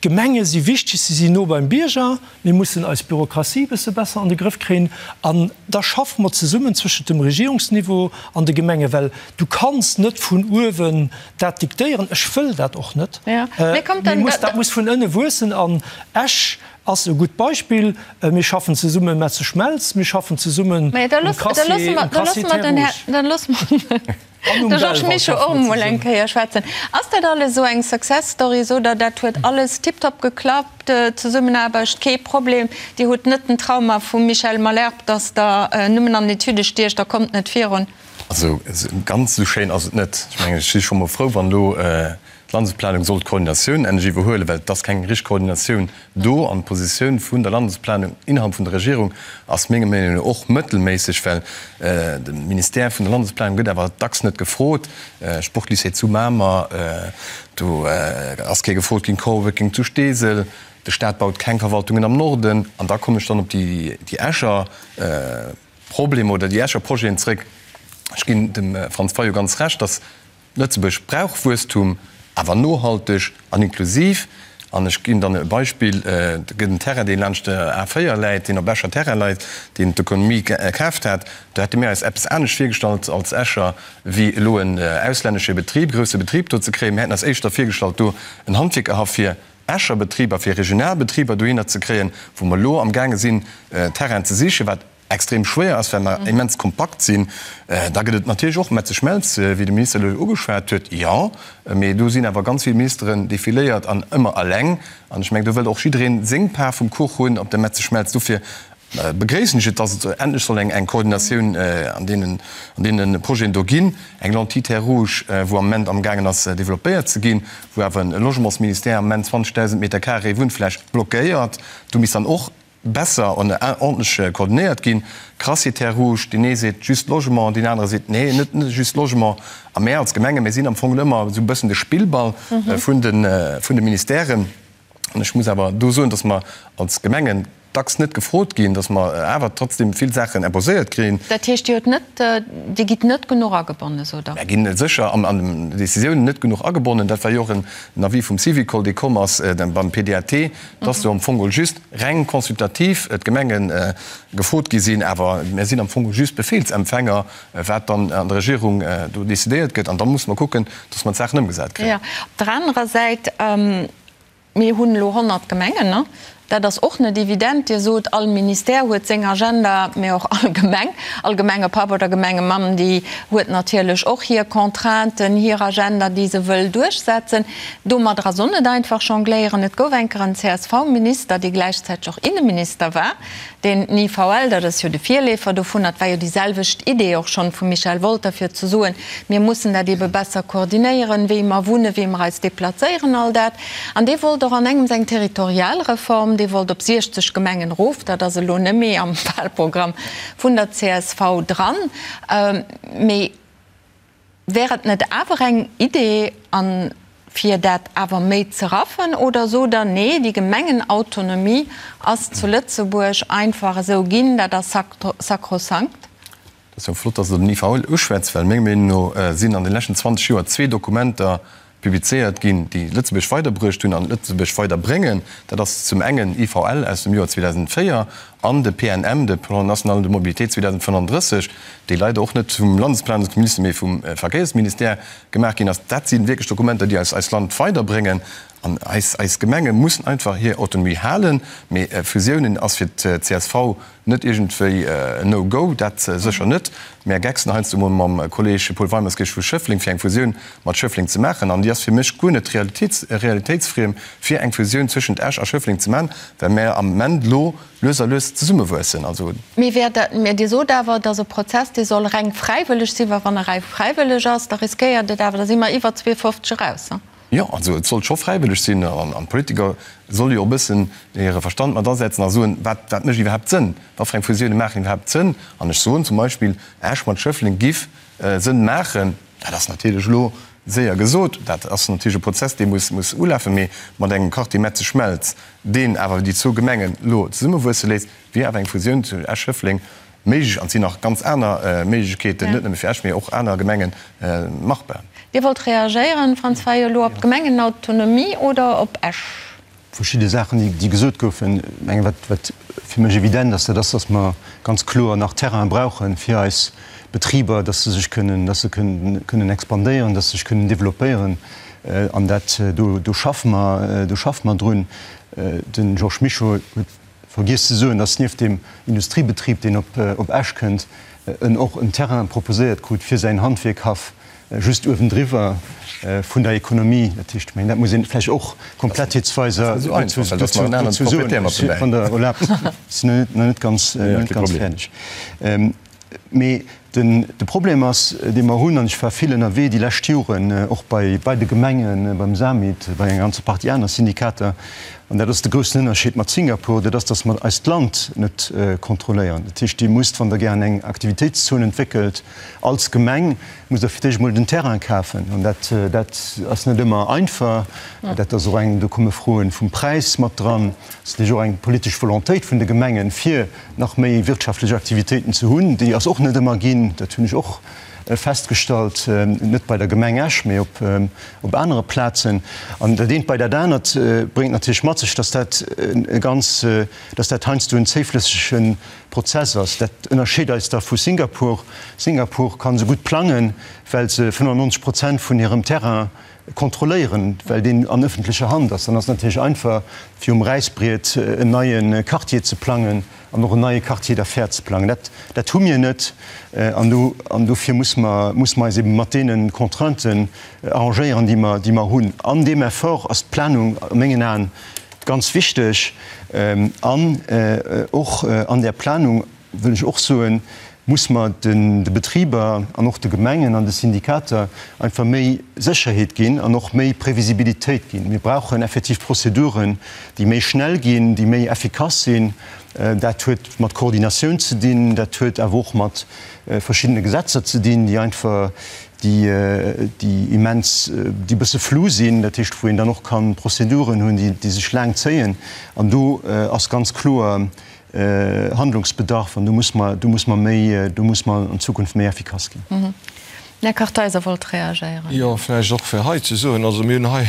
d'Gemenge si wichteg, si sinn no beim Bierger. Mir mussen eis Bürokratie e bësse besser an de Grëff kréien. An da schaffe mer zesummen zwëschent dem Regierungsniveau an de Gemengen, well du kanns net vun uewen dat diktéieren. Ech wëll dat och net. Mee dat muss vun ënne wuessen. An Esch Ass e gutt Beispill. Mir schaffen zesumme Metze Schmelz, mir schaffen zesummen um Crassier, um Crassier Terre Rouge. Dann loosse mer den Georges Mischo och emol eng Kéier schwätzen. Ass dat alles esou eng Success Story, sot Der, dat huet alles tiptop geklappt, Zesummenaarbecht kee Problem, Dir hutt net den Trauma vum Michel Malherbe, datt Der nëmmen an Etüde stiecht a kommt net virun? Also ganz esou schéin ass et net. Ech mengen, ech si scho mol frou, wann elo D'Landesplanung soll d'Koordinatioun endlech iwwerhuelen, well et ass keng richteg Koordinatioun do. An d'Positioun vun der Landesplanung innerhalb vun der Regierung ass menger Meenung no och mëttelméisseg, well de Ministère vun der Landesplanung gëtt awer dacks net gefrot. Sportlycée zu Mamer, do ass kee gefrot ginn, Coworking zu Steesel, de Staat baut keng Verwaltungen am Norden. An da kommen ech dann op déi Escher Problemer oder déi Escher Projeten zréck. Ech ginn dem Franz Fayot ganz Recht, dass Lëtzebuerg brauch Wuesstum, awer nohalteg an inklusiv. An ech ginn dann e Beispill, Et gëtt en Terrain, dee laanscht der A 4 läit, deen op Escher Terrain leit, deen d'Ökonomie kaaft hat. Do hätte mir eis eppes anescht virgestallt als Escher, wéi elo en auslännesche Betrib, grousse Betrib do ze kréien. Mir hätten eis éischter virgestallt, do en Handwierkerhaff fir Escher Betriber, fir regional Betriber dohinner ze kréien, wou mer elo amgaange sinn, Terrainen ze sichen, wat extrem schwéier ass, well mer immens kompakt sinn. Da gëtt et natierlech och Metze Schmelz, wéi de Minister elo ugeschwat huet. Jo, mee do sinn awer ganz vill Ministeren defiléiert an ëmmer eleng. An ech mengen, do wëllt och jiddereen seng Part vum Kuch hunn op der Metze Schmelz. Dofir begréissen ech et, dass et endlech soll eng Koordinatioun an deenen, an deene Projeten do ginn. Eng Lentille Terre Rouge, wou am Moment amgaangen ass developpéiert ze ginn, wou awer e Logementsministère am Moment 20.000 Meter carré Wunnfläch blockéiert. Do misst dann och besser an ordentlech koordinéiert ginn. Crassier Terres Rouges, deen ee seet just Logement, deen anere seet nee, net just Logement. A mär als Gemenge, mir sinn am Fong ëmmer esou e bëssen de Spillball vun de vun de Ministèren. An ech muss awer do soen, datt mer als Gemengen dacks net gefrot ginn, datt mer awer trotzdem vill Saachen imposéiert kréien. Dat heescht, Dir hutt net, Dir gitt net genuch agebonnen, sot Der? Mär ginn sécher an den Décisiounen net genuch agebonnen. Dat war jo och en Avis vum Syvicol, dee komm ass beim PDAT, dass do am Fong geholl just reng consultativ d'Gemenge gefrot gi sinn, awer mir sinn am Fong geholl just Befehlsempfänger, wat dann an der Regierung do decidéiert gëtt. An da musse mer kucken, dass mer d'Saachen ëmgesat kréien. Jo, op der anerer Säit, mir hunn elo 100 Gemengen, ne? Dat ass och net evident. Dir sot, all Ministère huet seng Agenda, mä och all Gemeng, all Gemengepapp oder Gemengemamm, déi huet natierlech och hir Contrainten, hir Agenda, déi se wëll duerchsetzen. Domadder ass och net einfach jongléieren. Et gouf eng Kéier en CSV-Minister, dee gläichzäiteg och Inneminister war, deen den IVL, dat ass jo de Virleefer dovunner, et war jo déi selwecht Idee och schonn vum Michel Wolter, fir ze soen, mir mussen dat eebe besser koordinéieren, wéi mer wunnen, wéi mer eis deplazéieren, all dat. An dee wollt och an engems eng Territorialreform, dee wollt op 60 Gemengen erof. Dat ass elo net méi am Wahlprogramm vun der csv dran. Mee Wär et net awer eng Idee, an fir dat awer méi ze raffen, oder sot Der, nee, déi Gemengenautonomie ass zu Lëtzebuerg einfach esou ginn, dat ass sakrosankt? Dat ass jo flott, dass Der den IVL uschwätzt, well menger Meenung no sinn an de leschten 20 Joer zwee Dokumenter. Publizéiert ginn, déi Lëtzebuerg weiderbruecht hunn an Lëtzebuerg weiderbréngen. Dat ass zum engen IVL aus dem Joer 2004 an de PNM, de Plan national de mobilité 2035, dee leider och net vum Landesplanungsminister, mee vum Verkéiersministère gemaach ginn ass. Dat si wierklech Dokumenter, déi eis eist Land weiderbréngen. An eis eis Gemenge mussen einfach hir Autonomie halen. Mee Fusiounen ass fir d'CSV Net iergendwéi en No-Go, dat sécher net. Mär gecksen heiansdo emol mam Kolleg Paul Weimerskirch vu Schëffleng, fir eng Fusioun mat Schëffleng ze maachen. An déi ass fir mech guer net realitéitsfriem, fir eng Fusioun zwëschent Esch a Schëffleng ze maachen, well mär am Ament elo lues a lues zesummewuessen. Also. Mee wär dat, mä Dir sot awer, et ass e Prozess, dee soll reng fräiwëlleg sinn, well wann e reng fräiwëlleg ass, da riskéiert et awer, da si mer iwwer 52 eraus. Jo, also et sollt scho fräiwëlleg sinn an d'Politiker solle jo och e bëssen hire Verstand mat asetzen a soen, wat wat mécht iwwerhaapt Sënn, wat fir eng Fusioune maachen iwwerhaapt Sënn. An ech soen zum Beispill, Esch mat Schëffleng giff Sënn maachen. Dat ass natierlech elo séier gesot, dat ass natierlech e Prozess, dee muss muss ulafen, mee mat engem Quartier Metzeg-Schmelz, deen awer déi zwou Gemengen elo zesummewuesse léisst, wier awer eng Fusioun zu Esch-Schëffleng méiglech an et sinn nach ganz aner Méiglechkeeten, net nëmme fir Esch, mee och aner Gemengen, machbar. Dir wollt reagéieren, Franz Fayot, elo op d'Gemengenautonomie oder op Esch? Verschidde Saachen, déi gesot goufen. Ech mengen, wat, wat fir mech evident ass, dat ass, dass mer ganz kloer nach Terrain brauche fir eis Betriber, dass se sech kënnen, dass se kënnen, kënnen expandéieren, dass se sech kënnen developpéieren. An dat, do, do schaffe mer, do schaffe mer drun. De Georges Mischo huet Vergiess ze soen, dass nieft deem Industriebetrib, deen op Esch kënnt, en och en Terrain proposéiert krut fir säin Handwierkhaff just uewendriwwer vun der Economie. Dat heescht, ech mengen, dat muss een vläicht och komplettheetsweiser dozou soen. Wann Der erlaabt, ech sinn nach net ganz fäerdeg. Mee den, de Problem ass, dee mer hunn, an ech war vill ënnerwee déi lescht Joren, och bei, bei de Gemengen, beim SAMIT, bei enger ganzer Partie aner Syndikater, an dat ass de groussen Ënnerscheed mat Singapur, dat ass, datt mer eist Land net kontrolléieren. Dat heescht, Dir musst, wann Der gären eng Aktivitéitszon entwéckelt als Gemeng, musst Der fir d'éischt emol den Terrain kafen. An dat, dat ass net ëmmer einfach. Dat ass och eng, do komme Froen vum Präis mat dran. Et ass natierlech och eng politesch Volontéit vun de Gemengen, fir nach méi wirtschaftlech Aktivitéiten ze hunn. Déi ass och net ëmmer ginn, dat hunn ech och festgestallt, net bei der Gemeng Esch, mee op anere Plazen. An dat eent bei dat anert bréngt natierlech mat sech, dass dat e ganz, dass dat heiansdo en zéiflëssege Prozess ass. Dat ënnerscheet eis da vu Singapur. Singapur ka sou gutt plangen, well se 95 Prozent vun hirem Terrain kontrolléieren, well deen an ëffentlecher Hand ass. Dann ass et natierlech einfach, fir um Räissbriet en neie Quartier ze plangen an och en neie Quartier d'affaires ze plangen. Dat, dat hu mir net. An do, an dofir muss mer, muss mer eis ebe mat deene Contrainten arrangéieren, déi mer, déi mer hunn. An deem Effort ass d'Planung a mengen Aen ganz wichteg. An och an där Planung wëll ech och soen, muss mer de Betriber an och de Gemengen an de Syndikater einfach méi Sécherheet ginn an och méi Previsibilitéit ginn. Mir brauchen effektiv Prozeduren, déi méi schnell ginn, déi méi effikass sinn. Dat huet mat Koordinatioun ze dinn, dat huet awer och mat verschiddene Gesetzer ze dinn, déi einfach, déi immens, déi e bësse flou sinn, dat heescht, wou een dann och ka Prozeduren hunn, déi sech laang zéien. An do ass ganz kloer, Handlungsbedarf an do muss mer, do muss mer méi, do muss mer an Zukunft méi effikass ginn. Här Kartheiser wollt reagéieren. Jo, vläicht och fir hei ze soen, also mir hunn hei,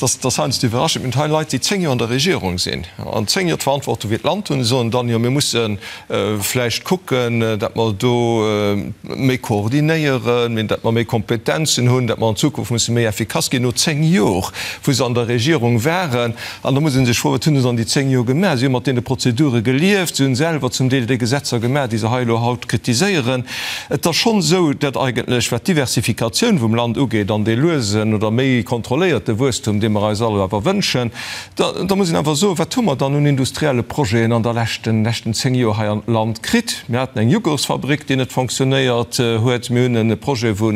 dat ass heiansdo iwwerraschend, mir hunn hei Leit, déi 10 Joer an der Regierung sinn an 10 Joer d'Verantwortung fir d'Land hunn, soen dann, jo mir musse vläicht kucken, datt mer do méi koordinéieren, datt mer méi Kompetenzen hunn, datt mer an Zukunft musse méi effikass ginn, no 10 Jor, wou se an der Regierung waren. An da muss ee sech froen, Wat hunn se an déi 10 Joer gemaach? Si hu mat deene Prozedure gelieft, si hunn selwer zum Deel déi Gesetzer gemaach, déi se hei elo haut kritiséieren. Et ass schonn esou, datt eigentlech, wat d'Diversifikatioun vum Land ugeet an dee luesen oder méi kontrolléierte Wuesstum, dee mer eis all awer wënschen, da da muss een awer soen, Wat hu mer dann un industrielle Projeten an der leschten leschten 10 Joer hei an d'Land kritt? Mir haten eng Jughurtsfabrik, déi net fonctionnéiert huet. Mir hunn e Projet vu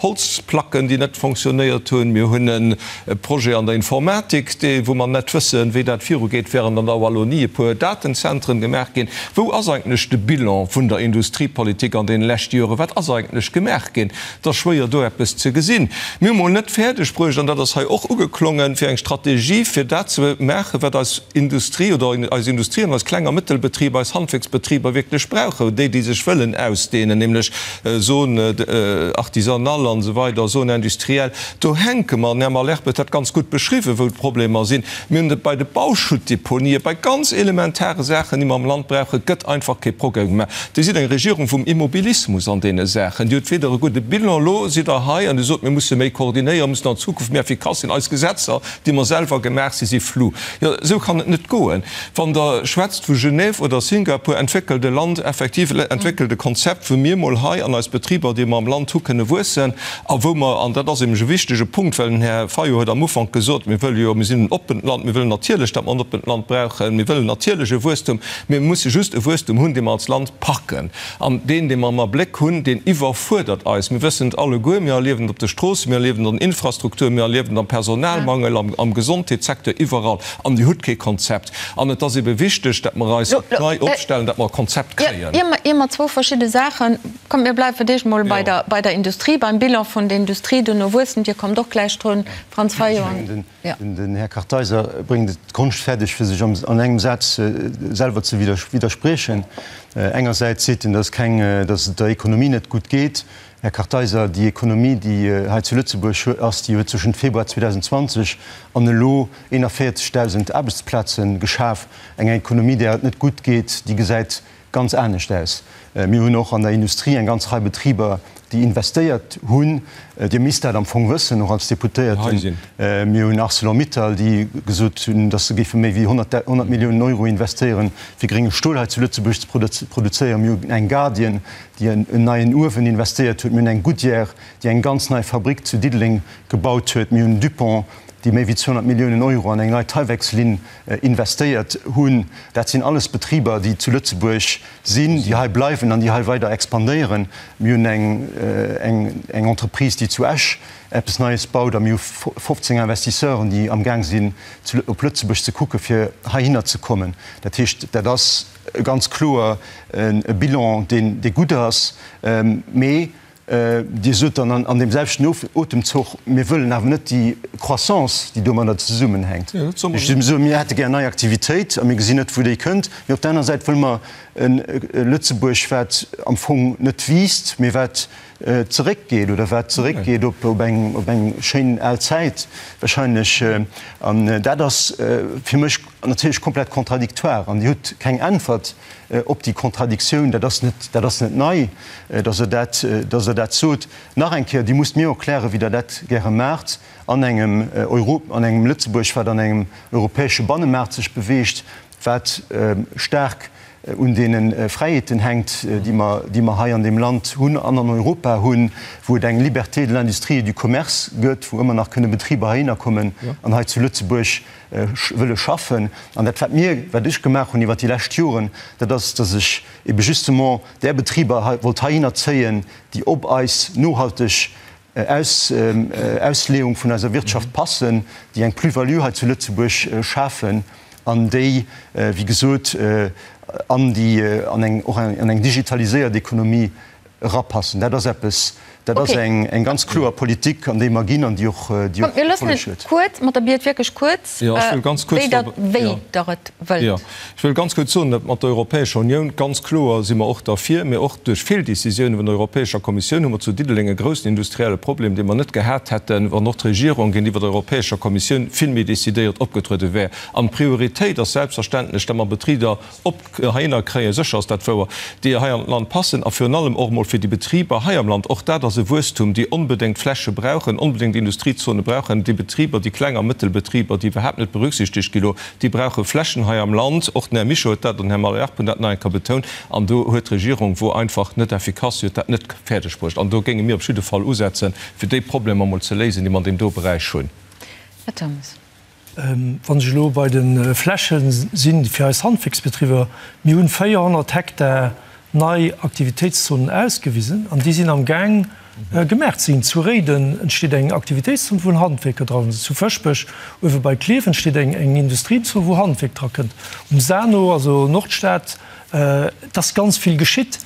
Holzplacken, déi net fonctionnéiert hunn. Mir hunn e Projet an der Informatik, dee wou mer net wëssen, wéi dat virugeet, während an der Wallonie e puer Datenzentren gemaach ginn. Wou ass eigentlech de Bilan vun der Industriepolitik an deene leschte Joren? Wat ass eigentlech gemaach ginn? Et ass schwéier do eppes ze gesinn. Mir hu mol net fäerdeg bruecht, an dat ass hei och ugeklongen, fir eng Strategie fir dat ze maachen, wat eis Industrie oder eis Industrie an eis Kleng a Mëttelbetriber, eis Handwierksbetriber wierklech brauchen, déi, déi sech wëllen ausdehnen, nämlech Zone artisanale an esou weider, Zone industrielle. Do hänke mer, an den Här Malherbe huet dat ganz gutt beschriwwen, wou d'Problemer sinn. Mir hunn et bei de Bauschuttdeponië, bei ganz elementare Saachen, déi mer am Land brauchen, gëtt einfach kee Progrès gemaach. Dir sidd eng Regierung vum Immobilismus an deene Saachen. Dir hutt weder e gudde Bilan, elo sidd Der hei an Dir sot, mir musse méi koordinéieren, mussen an Zukunft méi effikass sinn, eis Gesetzer, déi mer selwer gemaach si, si flou. Jo, esou kann et net goen. Wann Der schwätzt vu Genève oder Singapur, entwéckelt e Land effektiv, entwéckelt e Konzept, wou mir mol hei an eis Betriber, déi mer am Land hu, kënne wuessen a wou mer, an dat ass nämlech e wichtege Punkt, well den Här Fayot huet am Ufank gesot, mir wëlle jo, mir sinn en oppent Land, mir wëllen natierlech, datt mer en oppent Land brauchen, mir wëllen natierlech e Wuesstum, mir musse just e Wuesstum hunn, dee mer als Land packen. An deen, dee mer am Abléck hunn, deen iwwerfuerdert eis. Mir wëssen et alleguer, mir erliewen et op de Stroossen, mir erliewen et an den Infrastrukturen, mir erliewen et am Personalmangel, am Gesondheetssecteur, iwwerall. An Dir hutt kee Konzept. An et ass ebe wichteg, datt mer eis nei opstellen, datt mer e Konzept kréien. Ier mer zwou verschidde Saachen, kommt, mir bleiwe fir d'éischt emol bei der Industrie, beim Bilan vun der Industrie, duerno Wuesstem. Dir kommt och gläich drun, Franz Fayot. Den Här Kartheiser bréngt et konschtfäerdeg, fir sech an engem Saz selwer ze widderspriechen. Engersäits seet en, datt keng, datt et der Ekonomie net gutt geet. Här Kartheiser, déi Ekonomie, déi hei zu Lëtzebuerg ass, déi huet zwëschent Februar 2020 an elo 41.000 Aarbechtsplaze geschaf. Eng Ekonomie, där et net gutt geet, déi gesäit ganz anescht aus. Mir hunn och an der Industrie eng ganz Rei Betriber, déi investéiert hunn. Dir misst dat am Fong wëssen, och als Deputéierten. Mir hunn Arcelor-Mittal, déi gesot hunn, datt se géife méi wéi 100 Milliounen Euro investéieren, fir grénge Stol hei zu Lëtzebuerg ze produzéieren. Mir hunn eng Guardian, déi en neien Uewen investéiert huet. Mir hunn eng Goodyear, déi eng ganz nei Fabrick zu Diddeleng gebaut huet. Mir hunn Dupont, déi méi wéi 200 Milliounen Euro an eng nei Tyvekslinn investéiert hunn. Dat sinn alles Betriber, déi zu Lëtzebuerg sinn, déi hei bleiwen an déi hei weider expandéieren. Mir hunn eng Entreprise, déi zu Esch eppes Neies baut a mir hu 15 Investisseuren, déi amgaang sinn, op Lëtzebuerg ze kucken, fir heihinner ze kommen. Dat heescht, dat ass ganz kloer e Bilan, dee gutt ass. Mee Dir sot dann an deem selwechten Otemzuch, mir wëllen awer net déi Croissance, déi domadder zesummenhänkt. Ech soe mir hätte gär nei Aktivitéit a mir gesinn net, wou déi kënnt. Mee op der anerer Säit wëlle mer e Lëtzebuerg, wat am Fong net wiisst, mee wat zeréckgeet oder wat zeréckgeet op eng schéin al Zäit wahrscheinlech. An dat ass fir mech natierlech komplett contradictoire. An Dir hutt keng Äntwert op déi Contradictioun. Dat ass net, dat ass net nei, dass Der dat, dass Der dat sot. Nach eng Kéier, Dir musst mir erklären, wéi Der dat gäre maacht an engem Euro, an engem Lëtzebuerg, wat an engem europäesche Bannemaart sech beweegt, wat staark un deene Fräiheeten hänkt, déi mer, déi mer hei an deem Land hunn an an Europa hunn, wou et eng Liberté de l'industrie et du commerce gëtt, wou ëmmer nach kënne Betriber heihinner kommen an hei zu Lëtzebuerg wëlle schaffen. An dat, wat mir, wat ech gemaach hunn iwwert déi lescht Joren, dat ass, dass ech ebe justement där Betriber hei wollt heihinner zéien, déi op eis nohalteg Ausleeung vun eiser Wirtschaft passen, déi eng Plus-value hei zu Lëtzebuerg schafen an déi, wéi gesot, an déi, an eng, och an eng digitaliséiert Ekonomie erapassen. Dat ass eppes, dat ass eng ganz kloer Politik, an déi mer ginn an déi och déi och Erfolleg huet. Kuerz, mat der Biet wierklech kuerz, wéi Der wéi Der et wëllt. Jo, ech wëll ganz kuerz soen, datt mat der Europäescher Unioun, ganz kloer si mer och derfir, mee och duerch Feeldécisioune vun der Europäescher Kommissioun hu mer zu Diddeleng e groussen industrielle Problem, dee mer net gehat hätten, wann och d'Regierung géintiwwer der Europäescher Kommissioun vill méi decidéiert opgetruede wär. An d'Prioritéit ass selbstverständlech, datt mer Betrider op heihinner kréien, sécher ass dat wouer, déi hei an d'Land passen a virun allem och emol fir déi Betriber hei am Land, och dat ass e Wuesstum, déi onbedéngt Fläche brauchen, onbedéngt Industriezone brauchen, déi Betriber, déi Kleng a Mëttelbetriber, déi iwwerhaapt net berücksichtegt gi lo, déi brauche Flächen hei am Land. Och den Här Mischo huet dat an den Här Malherbe hunn dat nach eng Kéier betount. An do huet d'Regierung, wor einfach net effikass, si huet dat net fäerdeg bruecht. An do géinge mir op jidde Fall usetzen, fir déi Problemer emol ze léisen, déi mer an deem do Beräich hunn. Här Turmes. Wann ech elo bei de Fläche sinn fir eis Handwierksbetriber, mir hunn 400 Hektar nei Aktivitéitszonen ausgewisen an déi sinn am Gaang gemaach ze ginn. Zu Réiden entsteet eng Aktivitéitszon, wou en Handwierker dran ass. Zu Fëschbech uewe bei Klierf entsteet eng Industriezon, wou Handwierk dra kënnt. Um Sano, also Nordstad, et ass ganz vill geschitt.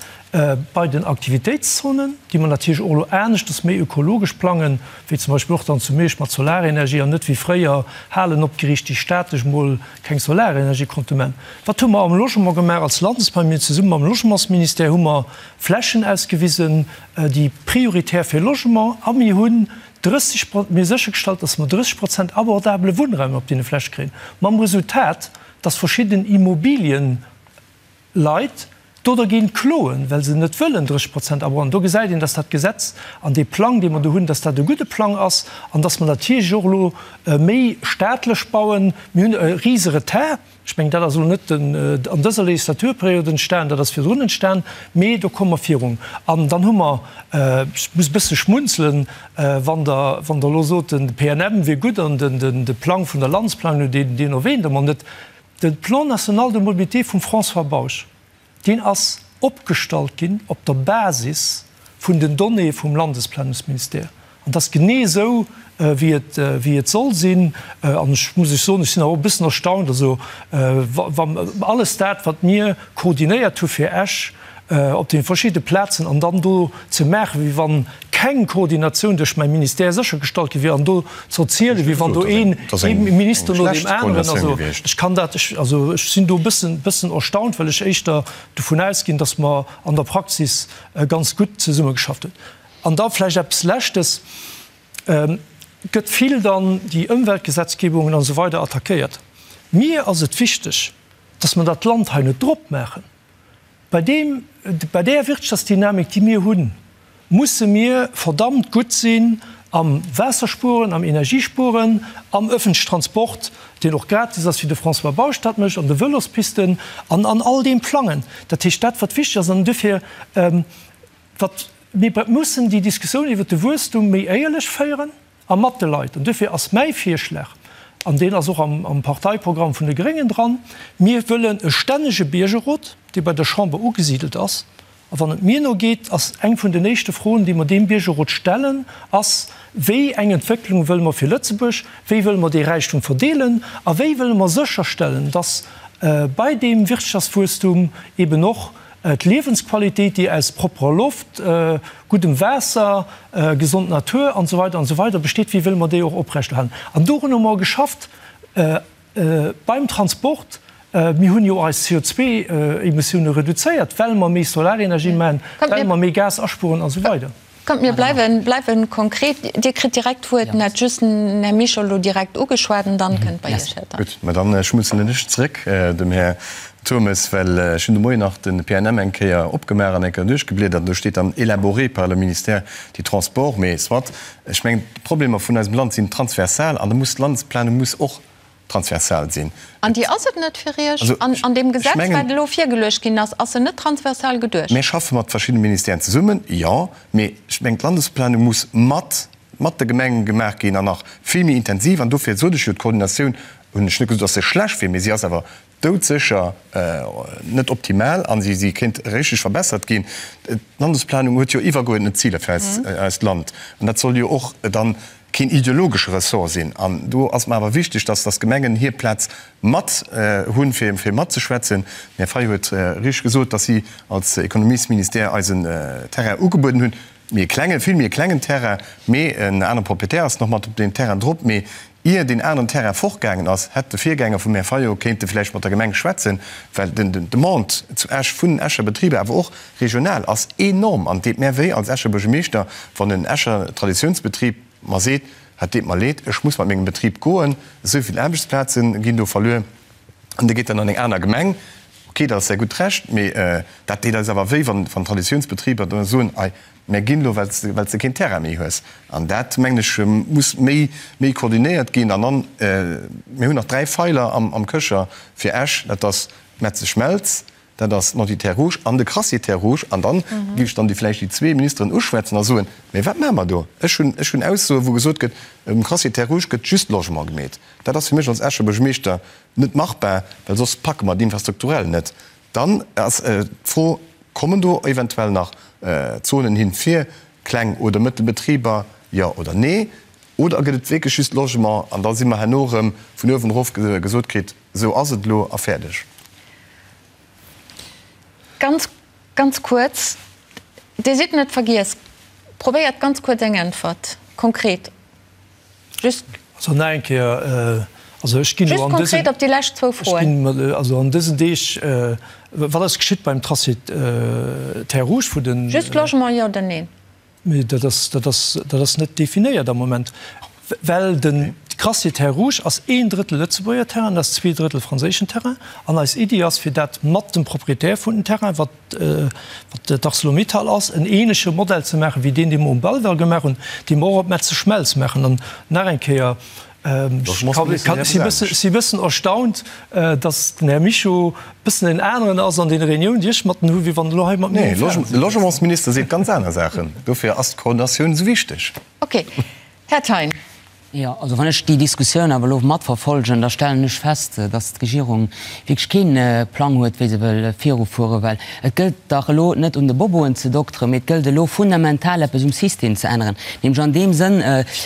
Bei den Aktivitéitszonen, déi mer natierlech och elo aneschters méi ökologesch plangen, wéi zum Beispill och dann zu Miersch mat Solarenergie an net wéi fréier Halen opgeriicht, déi staatlech mol keng Solarenergie konnte man. Wat hu mer am Logement gemaach als Landesplan? Mir hunn zesumme mam Logementsministère hu mer Flächen ausgewisen, déi prioritär fir Logement, a mir hunn 30, mir hu séchergestallt, dass mer 30 Prozent abordabele Wunnraum op deene Fläche kréien, mam Resultat, dass verschidden Immobilien, Leit do dergéint kloen, well se net wëllen 30 Prozent abronnen. Do gesäit een, dass dat Gesetz an dee Plang, dee mer do hunn, dass dat e gudde Plang ass an dass mer natierlech och elo méi staatlech bauen. Mir hunn e rise Retard. Ech mengen, dat ass elo net an dëser Legislaturperiod entstan, dat ass virdrun entstan, mee do komme mer virun. An dann hu mer, ech muss e bësse schmunzelen, wann Der, wann Der elo sot, de PNM wier gutt an de Plang vun der Landesplanung, deen erwähnt Der mer net, De Plan national de mobilité vum François Bausch, deen ass opgestallt ginn op der Basis vun den Donnéeë vum Landesplanungsministère. An dat ass genee esou, wéi et, wéi et soll sinn. An ech muss lech soen, ech sinn awer och e bëssen erstaunt, also wa alles dat, wat mir koordinéiert hu fir Esch, op deene verschidde Plazen an dann do ze maachen, wéi wann keng Koordinatioun duerch mäi Ministère séchergestallt gi wier, an do ze erzielen, wéi wann do een Minister no deem aneren, also ech kann dat, also ech sinn do e bëssen, bëssen erstaunt, well ech éischter dovun ausginn, datt mer an der Praxis ganz gutt zesummegeschafft hunn. An da vläicht eppes Leschtes, Et gëtt vill dann déi Ëmweltgesetzgebungen an esou weider attackéiert. Mir ass et wichteg, datt mer dat Land hei net drop maachen. Bei deem, bei där Wirtschaftsdynamik, déi mir hunn, musse mir verdammt gutt sinn am Waasserspueren, am Energiespueren, am öffentlichen Transport, deen och gratis ass, wéi de François Bausch dat mécht, an de Vëlospisten an an all deem Plangen. Dat heescht, dat wat wichteg ass, an duerfir, wat mir mussen déi Diskussioun iwwert de Wuesstum méi éierlech féieren, A mat de Leit. An duerfir ass mäi Virschlag, an deen ass och am Parteiprogramm vun de Gréngen dran, Mir wëllen e stännege Biergerrot, dee bei der Chamber ugesidelt ass. A wann et mir no geet, ass eng vun den éischte Froen, déi mer deem Biergerrot stellen, ass, Wéi eng Entwécklung wëlle mer fir Lëtzebuerg? Wéi wëlle mer dee Räichtum verdeelen? A wéi wëlle mer sécherstellen, dass bei deem Wirtschaftswuesstum eben och D'Liewensqualitéit, déi aus propperer Loft, guddem Waasser, gesond Natur an esou weider an esou weider besteet, wéi wëlle mer déi och oprechterhalen? An dorun hu mer geschafft beim Transport. Mir hunn jo eis CO2-Emissioune reduzéiert, well mer méi Solarenergie maachen, well mer méi Gas aspueren an esou weider. Kommt, mir bleiwen, bleiwen konkret. Dir kritt direkt d'Wuert, en hat just den Här Mischo elo direkt ugeschwat an dann kënnt bei Iech, Här Turmes. Gutt, mä dann schmunzelen ech zrëck dem Här Turmes, well ech hunn de Moien nach de PNM eng Kéier opgemaach an eng Kéier duerchgebliedert an do steet dann élaboré par le ministère des Transports. Mee soit, ech mengen, d'Problemer vun eisem Land sinn transversal an da muss d'Landesplanung muss och transversal sinn. An déi ass et net fir Iech? An an deem Gesetz, wat elo virgeluecht ginn ass, ass se net transversal geduecht? Mir schaffe mat verschiddene Ministèren zesummen, jo, mee ech mengen, d'Landesplanung muss mat mat de Gemenge gemaach ginn an nach vill méi intensiv. An dofir sot ech jo, d'Koordinatioun, hunn ech net gesot, datt se schlecht wier, mee si ass awer doudsécher net optimal a si kéint richteg verbessert ginn. D'Landesplanung huet jo iwwergeuerdnet Ziler fir eist Land an dat soll jo och dann keen ideologesche Ressort sinn. An do ass mer awer wichteg, dass dass d'Gemengen hir Plaz mat hunn, fir fir matzeschwätzen. Den Här Fayot huet richteg gesot, dass si als Ekonomiesministère eis en Terrain ugebueden hunn, méi e klengen, vill méi e klengen Terrain, mee en anere Proprietär ass nach mat op deem Terrain drop. Mee ier deen aneren Terrain fortgaangen ass, hätt de Virgänger vum Här Fayot kéinte vläicht mat der Gemeng schwätzen, well den Demande zu Esch vun den Escher Betriber, awer och regional, ass enorm. An et deet mär wéi als Escher Buergermeeschter, wann en Escher Traditiounsbetrib mer seet, Et deet mer leed, ech muss mat mengem Betrib goen, esou vill Aarbechtsplaze ginn do verluer. An dee geet dann an eng aner Gemeng. Ok, dat ass säi gutt Recht, mee dat deet eis awer wéi, wann Traditiounsbetriber da soen, Ei, mär ginn elo, well s de keen Terrain méi hues. An dat, mengen ech, muss méi méi koordinéiert ginn. An dann, mir hunn nach 3 Feiler am Köcher fir Esch, dat ass d'Metzeschmelz, dat ass d'Nanty Terres Rouges an de Crassier Terres Rouges. An dann géif ech dann déi vläicht déi zwee Ministeren uschwätzen a soen, Mee wat maache mer do? Ech hunn, ech hunn Aussoen, wou gesot gëtt, um Crassier Terres Rouges gëtt just Logement gemeet. Dat ass fir mech als Escher Buergermeeschter net machbar, well soss packe mer d'infrastrukturell net. Dann ass d'Fro, Kommen do eventuell nach Zonen hin fir kleng oder mëttel Betriber, jo oder nee? Oder gëtt et wierklech just Logement an da si mer herno erëm vun uewen erof gesot kritt, esou ass et elo a fäerdeg? Ganz. Ganz kuerz, Dir sidd net vergiess. Probéiert ganz kuerz eng Äntwert, konkret. Just. Also nach eng Kéier, also ech ginn elo an dësen. Just konkret op déi lescht zwou Froen. Ech ginn also an dësen Deeg, wat ass geschitt beim Tracé Terres Rouges, wou den. Just Logement, jo oder neen? Mee dat ass, dat ass, dat ass net definéiert am Moment, well den Crassier Terres Rouges ass een Drëttel Lëtzebuerger Terrain, ass zwee Drëttel franséischen Terrain. An eis Iddi ass, fir dat mat dem Proprietär vun den Terrain, wat, wat d'Arcelor-Mittal ass, en ähnleche Modell ze maachen, wéi deen, dee mer um Belval gemaach hunn, dee mer och op Metzeschmelz maachen. An nach eng Kéier, Ech si bëssen erstaunt, datt den Här Mischo bëssen en aneren ass an deene Reuniounen, déi ech mat en hu, wéi wann en elo hei mat mir um Fernseh sëtzt. De Logementsminister seet ganz aner Saachen. Dofir ass d'Koordinatioun esou wichteg. Ok. Här Thein. Jo, also wann ech déi Diskussioun awer elo matverfolgen, da stellen ech fest, datt d'Regierung wierklech kee Plang huet, wéi se wëll virufueren. Well et gëllt dach elo net un de Boboen ze dokteren, mee et gëllt elo fundamental eppes um System ze änneren, nämlech an deem Sënn,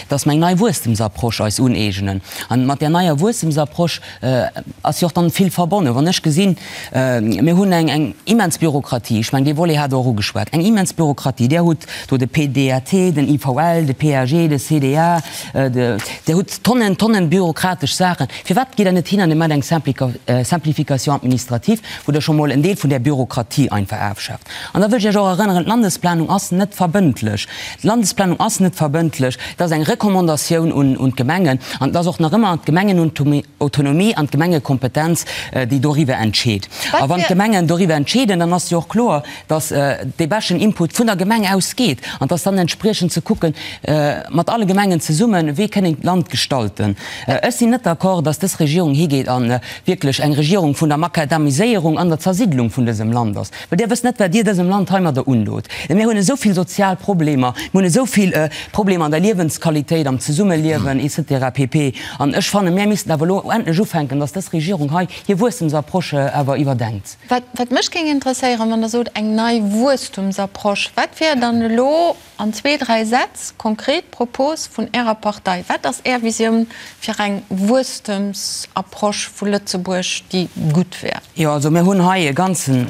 dass mer eng nei Wuesstemsapproche eis uneegnen. An mat där neier Wuesstemsapproche ass jo och dann vill verbonnen. Wann ech gesinn, mir hunn eng eng immens Bürokratie, ech mengen dee Volet hat Der och ugeschwat, eng immens Bürokratie, Där hutt do de PDAT, den IVL, de PAG, de CDA, Der hutt Tonnen, Tonnen bürokratesch Saachen. Firwat gitt Der net hin an Dir maacht eng Simplification administrative, wou Der scho mol en Deel vun där Bürokratie einfach afschaaft? An da wëll ech Iech och erënneren, D'Landesplanung ass net verbëndlech. D'Landesplanung ass net verbëndlech. Et ass eng Recommandatioun un d'Gemengen. An et ass och nach ëmmer d'Gemengenautonomie an d'Gemengekompetenz, déi doriwwer entscheet. A wann d'Gemengen doriwwer entscheeden, dann ass jo och kloer, dass dee beschten Input vun der Gemeng ausgeet an dass dann entspriechend ze kucken, mat alle Gemengen zesummen, wéi kënn een d'Land gestalten. Ech sinn net d'accord, dass dës Regierung higeet a wierklech eng Regierung vun der Makadamiséierung an der Zersiddlung vun dësem Land ass, well Dir wësst net, wat Dir dësem Land heimadder undot. Mir hunn esou vill sozial Problemer, mir hunn esou vill Problemer an der Liewensqualitéit, am Zesummeliewen et cetera pp. An ech fannen, mir missten awer elo endlech ufänken, dass dës Regierung hei hir Wuesstemsapproche awer iwwerdenkt. Wat mech géing interesséieren, wann Der sot eng nei Wuesstumsapproche, wat wär dann elo an zwee, dräi Sätz konkret d'Propos vun Ärer Partei? Wat ass Är Visioun fir eng Wuesstemsapproche vu Lëtzebuerg, déi gutt wär? Jo, also mir hunn hei e ganzen,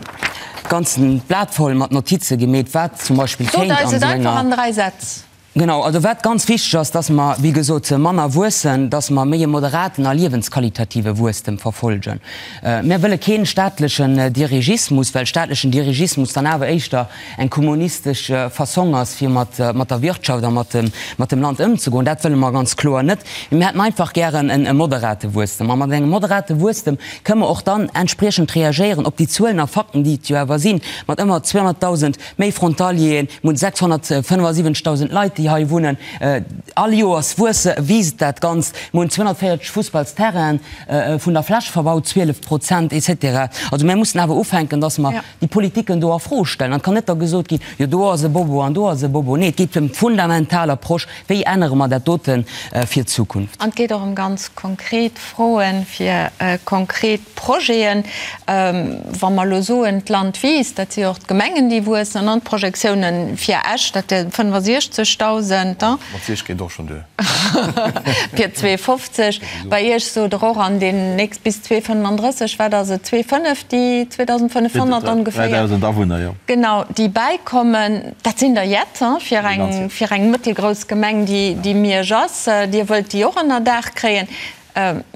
ganzen Blat voll mat Notize gemeet, wat zum Beispill kéint an esou enger. Sot eis et einfach an dräi Sätz. Genau, also wat ganz wichteg ass, dass mer, wéi gesot, manner wuessen, dass mer méi e moderaten a liewensqualitative Wuesstem verfolgen. Mir wëlle kee staatlechen Dirigismus, well staatlechen Dirigismus dann awer éischter eng kommunistesch Fassong ass, fir mat der Wirtschaft a mat dem Land ëmzegoen. Dat wëlle mer ganz kloer net. Mee mir hätten einfach gären e moderate Wuesstem. A mat engem moderate Wuesstem kënnen mer och dann entspriechend reagéieren op déi Zuelen a Fakten, déi et jo awer sinn, mat ëmmer 200.000 Méi Frontalieren, mir hunn 675.000 Leit, déi hei wunnen. All Joers wuesse, wiisst dat Ganzt. Mir hunn 240 Fussballsterrainen, vun der Fläch verbaut 12 Prozent, et cetera. Also mir mussen awer ufänken, dass mer déi Politiken do a Fro stellen. An et kann net da gesot ginn, jo do ass e Bobo an do ass e Bobo. Nee, et geet ëm d'fundamental Approche, Wéi ännere mer dat dote fir d'Zukunft? An et geet och ëm ganz konkret Froen fir konkret Projeten. Wa mer elo soen, d'Land wiisst, dat si jo och d'Gemengen, déi wuessen, an d'Projektiounen fir Esch, dat wier 65.000. Mat Iech geet och schonn duer. Fir 2,50. Bei Iech sot Der och, an deen nächst bis 2,35, wat ass et, 2,5, déi 2.500 ongeféier. 3.000 Awunner, jo. Genau, déi bäikommen. Dat sinn der jett, fir eng, fir eng mëttelgrouss Gemeng, déi, déi Miersch ass. Dir wëllt déi och ënnerdaach kréien.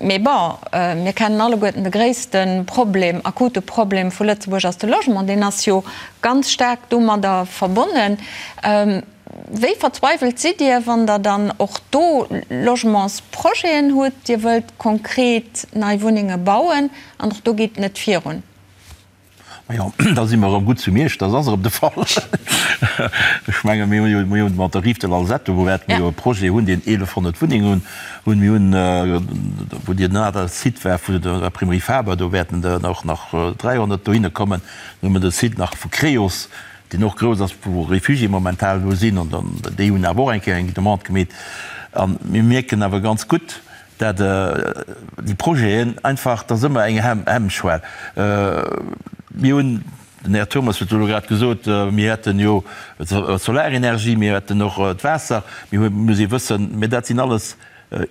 Mee bon, mir kennen alleguerten de gréisste Problem, akute Problem vu Lëtzebuerg ass de Logement. Deen ass jo ganz staark domadder verbonnen. Wéi verzweiwelt sidd Dir, wann Der dann och do Logementsprojeten hutt, Dir wëllt konkret nei Wunnenge bauen an och do geet et net virun? Majo, da si mer erëm gutt zu Miersch, dat ass erëm de Fall. Ech menge mir hunn jo, mir hunn mat der Rive de l'Alzette, wou wäerte mir jo e Projet hunn, deen 1.100 Wunnengen hunn. Mir hunn, wou deen anere Site war vun der Imprimerie Faber, do wäerten der och nach 300 dohinne kommen. Dann hu mer de Site nach vu Creos, deen och grouss ass, wou Réfugiéë momentan elo sinn, an dann, déi hunn awer och eng Kéier eng Demande gemeet. A mir mierken awer ganz gutt, dat déi Projeten einfach, dat ass ëmmer eng Hemmschwell. Mir hunn, den Här Turmes huet elo grad gesot, mir hätten jo d'Solarenergie, mir hätten och d'Waasser, mir hu, muss ee wëssen, mä dat sinn alles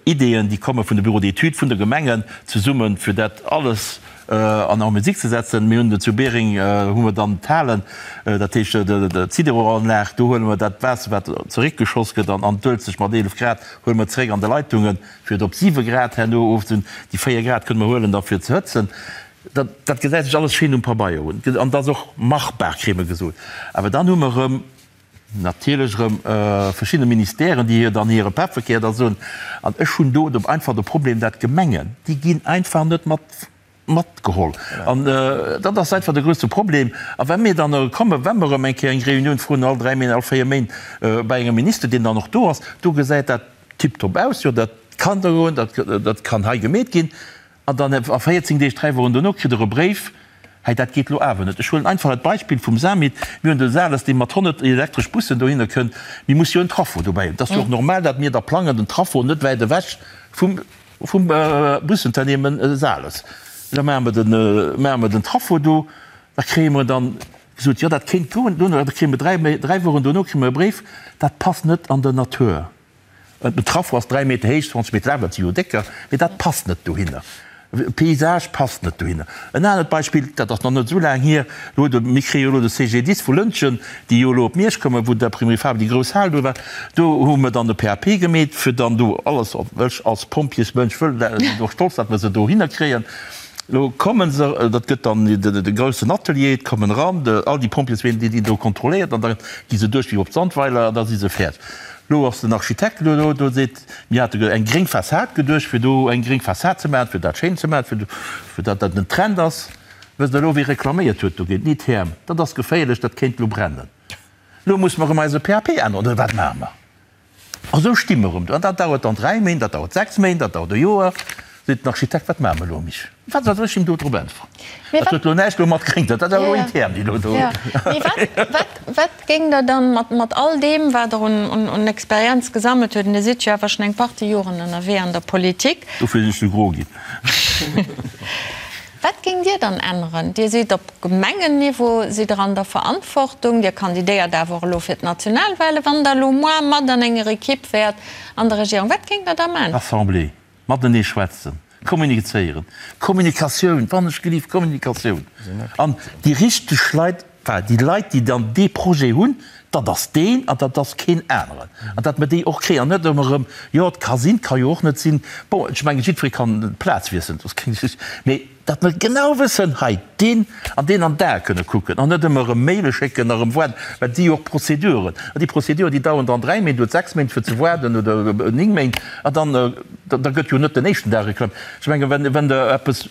Ideeën, déi komme vun de Bureaux d'études, vun de Gemengen zesummen, fir dat alles. An en musique ze setzen. Mir hunn zu Biereng hu mer dann d'Halen, dat heescht d'Sideroanlag, do huele mer dat Waasser, wat zeréckgeschoss gëtt an d'Uelzecht mat 11 Grad, huele mer zeréck an de Leitungen, fir et op 7 Grad herno ofzehunn. Déi 4 Grad kënne mer huelen da fir ze hëtzen. Dat, dat gesäit sech alles schéin um Pabeier un an dat ass och machbar, kréie mer gesot. Awer dann hu mer erëm natierlech erëm verschidde Ministèren, déi hir dann hire Pefferkär da soen. An ech hunn do einfach de Problem, dat d'Gemengen, déi ginn einfach net mat matgeholl. An dat ass einfach de grouse Problem. A wa mir dann kommen, wa mer erëm eng Kéier eng Reunioun froen, all dräi Méint, all véier Méint, bei engem Minister, deen dann och do ass, do gesäit dat tiptop aus, jo dat kann do goen, dat kann hei gemeet ginn. An dann a 14 Deeg, dräi Wochen dono, kritt Der e Bréif, Hei, dat geet elo awer net. Ech huelen einfach dat Beispill vum Samit. Mir hunn de Sales, dee mat 100 elektresch Bussen dohinner kënnt. Mir musse jo en Traffo dobäi hunn. Et ass jo och normal, datt mir da plangen, den Traffo net wäit ewech vum, vum Busunternehmen Sales. Da maache mer den, maache mer den Traffo do. Da kréie mer dann gesot, jo, dat kéint goen. Dono, da kréie mer dräi, dräi Wochen dono kréie mer e Bréif, dat passt net an der Natur. Den Traffo ass 3 Meter héich, 20 Meter laang, dat si jo décker, mee dat passt net dohinner. Paysage passt net dohinner. En anert Beispill, dat ass nach net esou laang hier, do huet e, mir kréie jo elo de CGDIS vu Lëntgen, déi jo elo op Miersch kommen, wou d'Imprimerie Faber déi grouss Hal do war, do hu mer dann e PAP gemeet, fir dann do alles, ech als Pompjeesmënsch wëll, sinn och stolz, datt mer se dohinner kréien. Elo komme se, dat gëtt dann de groussen Atelier, et kommen eran all déi Pompjeesween, déi ginn do kontrolléiert an da gi se duerch wéi op Sandweiler an da si se fäerdeg. Lo ass den Architekt elo do, do seet, mir hate eng gréng Fassad geduecht, fir do eng gréng Fassad ze maachen, fir dat schéin ze maachen, fir datt dat en Trend ass. Wësst Der elo, wie reklaméiert huet dogéint? D'Nitherm. Dat ass geféierlech, dat kéint elo brennen. Elo musse mer erëm eise PAP änneren, oder wat maache mer? A sou sti mer erëm do. An dat dauert dann dräi Méint, dat dauert sechs Méint, dat dauert e Joer. Seet den Architekt, wat maache mer elo, Mich? Wat soll ech him do drop äntweren? Dat huet elo näischt elo mat gréng, dat ass awer elo intern, déi elo do. Mee wat, wat géing Der dann mat, mat all deem, wat Der un, un, un Experienz gesammelt huet, an Dir sidd jo awer schonn eng Partie Joren ënnerwee an der Politik. Dofir sinn ech sou gro ginn. Wat géingt Dir dann änneren? Dir sidd op Gemengenniveau, sidd Der an der Verantwortung, Dir kandidéiert awer och elo fir d'Nationalwahlen. Wann Der elo moar mat an enger Equipe wäert an der Regierung, wat géingt Der da maachen? Assemblée. Matenee schwätzen, kommunizéieren, Kommunikatioun, wann ech gelift, Kommunikatioun. An déi richteg Leit, enfin déi Leit, déi dann dee Projet hunn, dat ass deen an dat ass keen aneren. An datt mer déi och kréien an net ëmmer erëm, jo et ka sinn, et ka jo och net sinn. Bon, ech mengen, jiddweree kann d'Plaz wiesselen, dat ass keng Geschicht, mee Datt mer genau wëssen, hei deen an deen an d'Ae kënne kucken an net ëmmer erëm Maile schécken a erëm waarden, well et si jo och Prozeduren. An déi Prozeduren, déi daueren dann dräi Méint oder sechs Méint fir ze waarden oder néng Méint an dann, da gëtt jo net den éischten Dag reklamiert. Ech mengen, wenn, wenn Der eppes,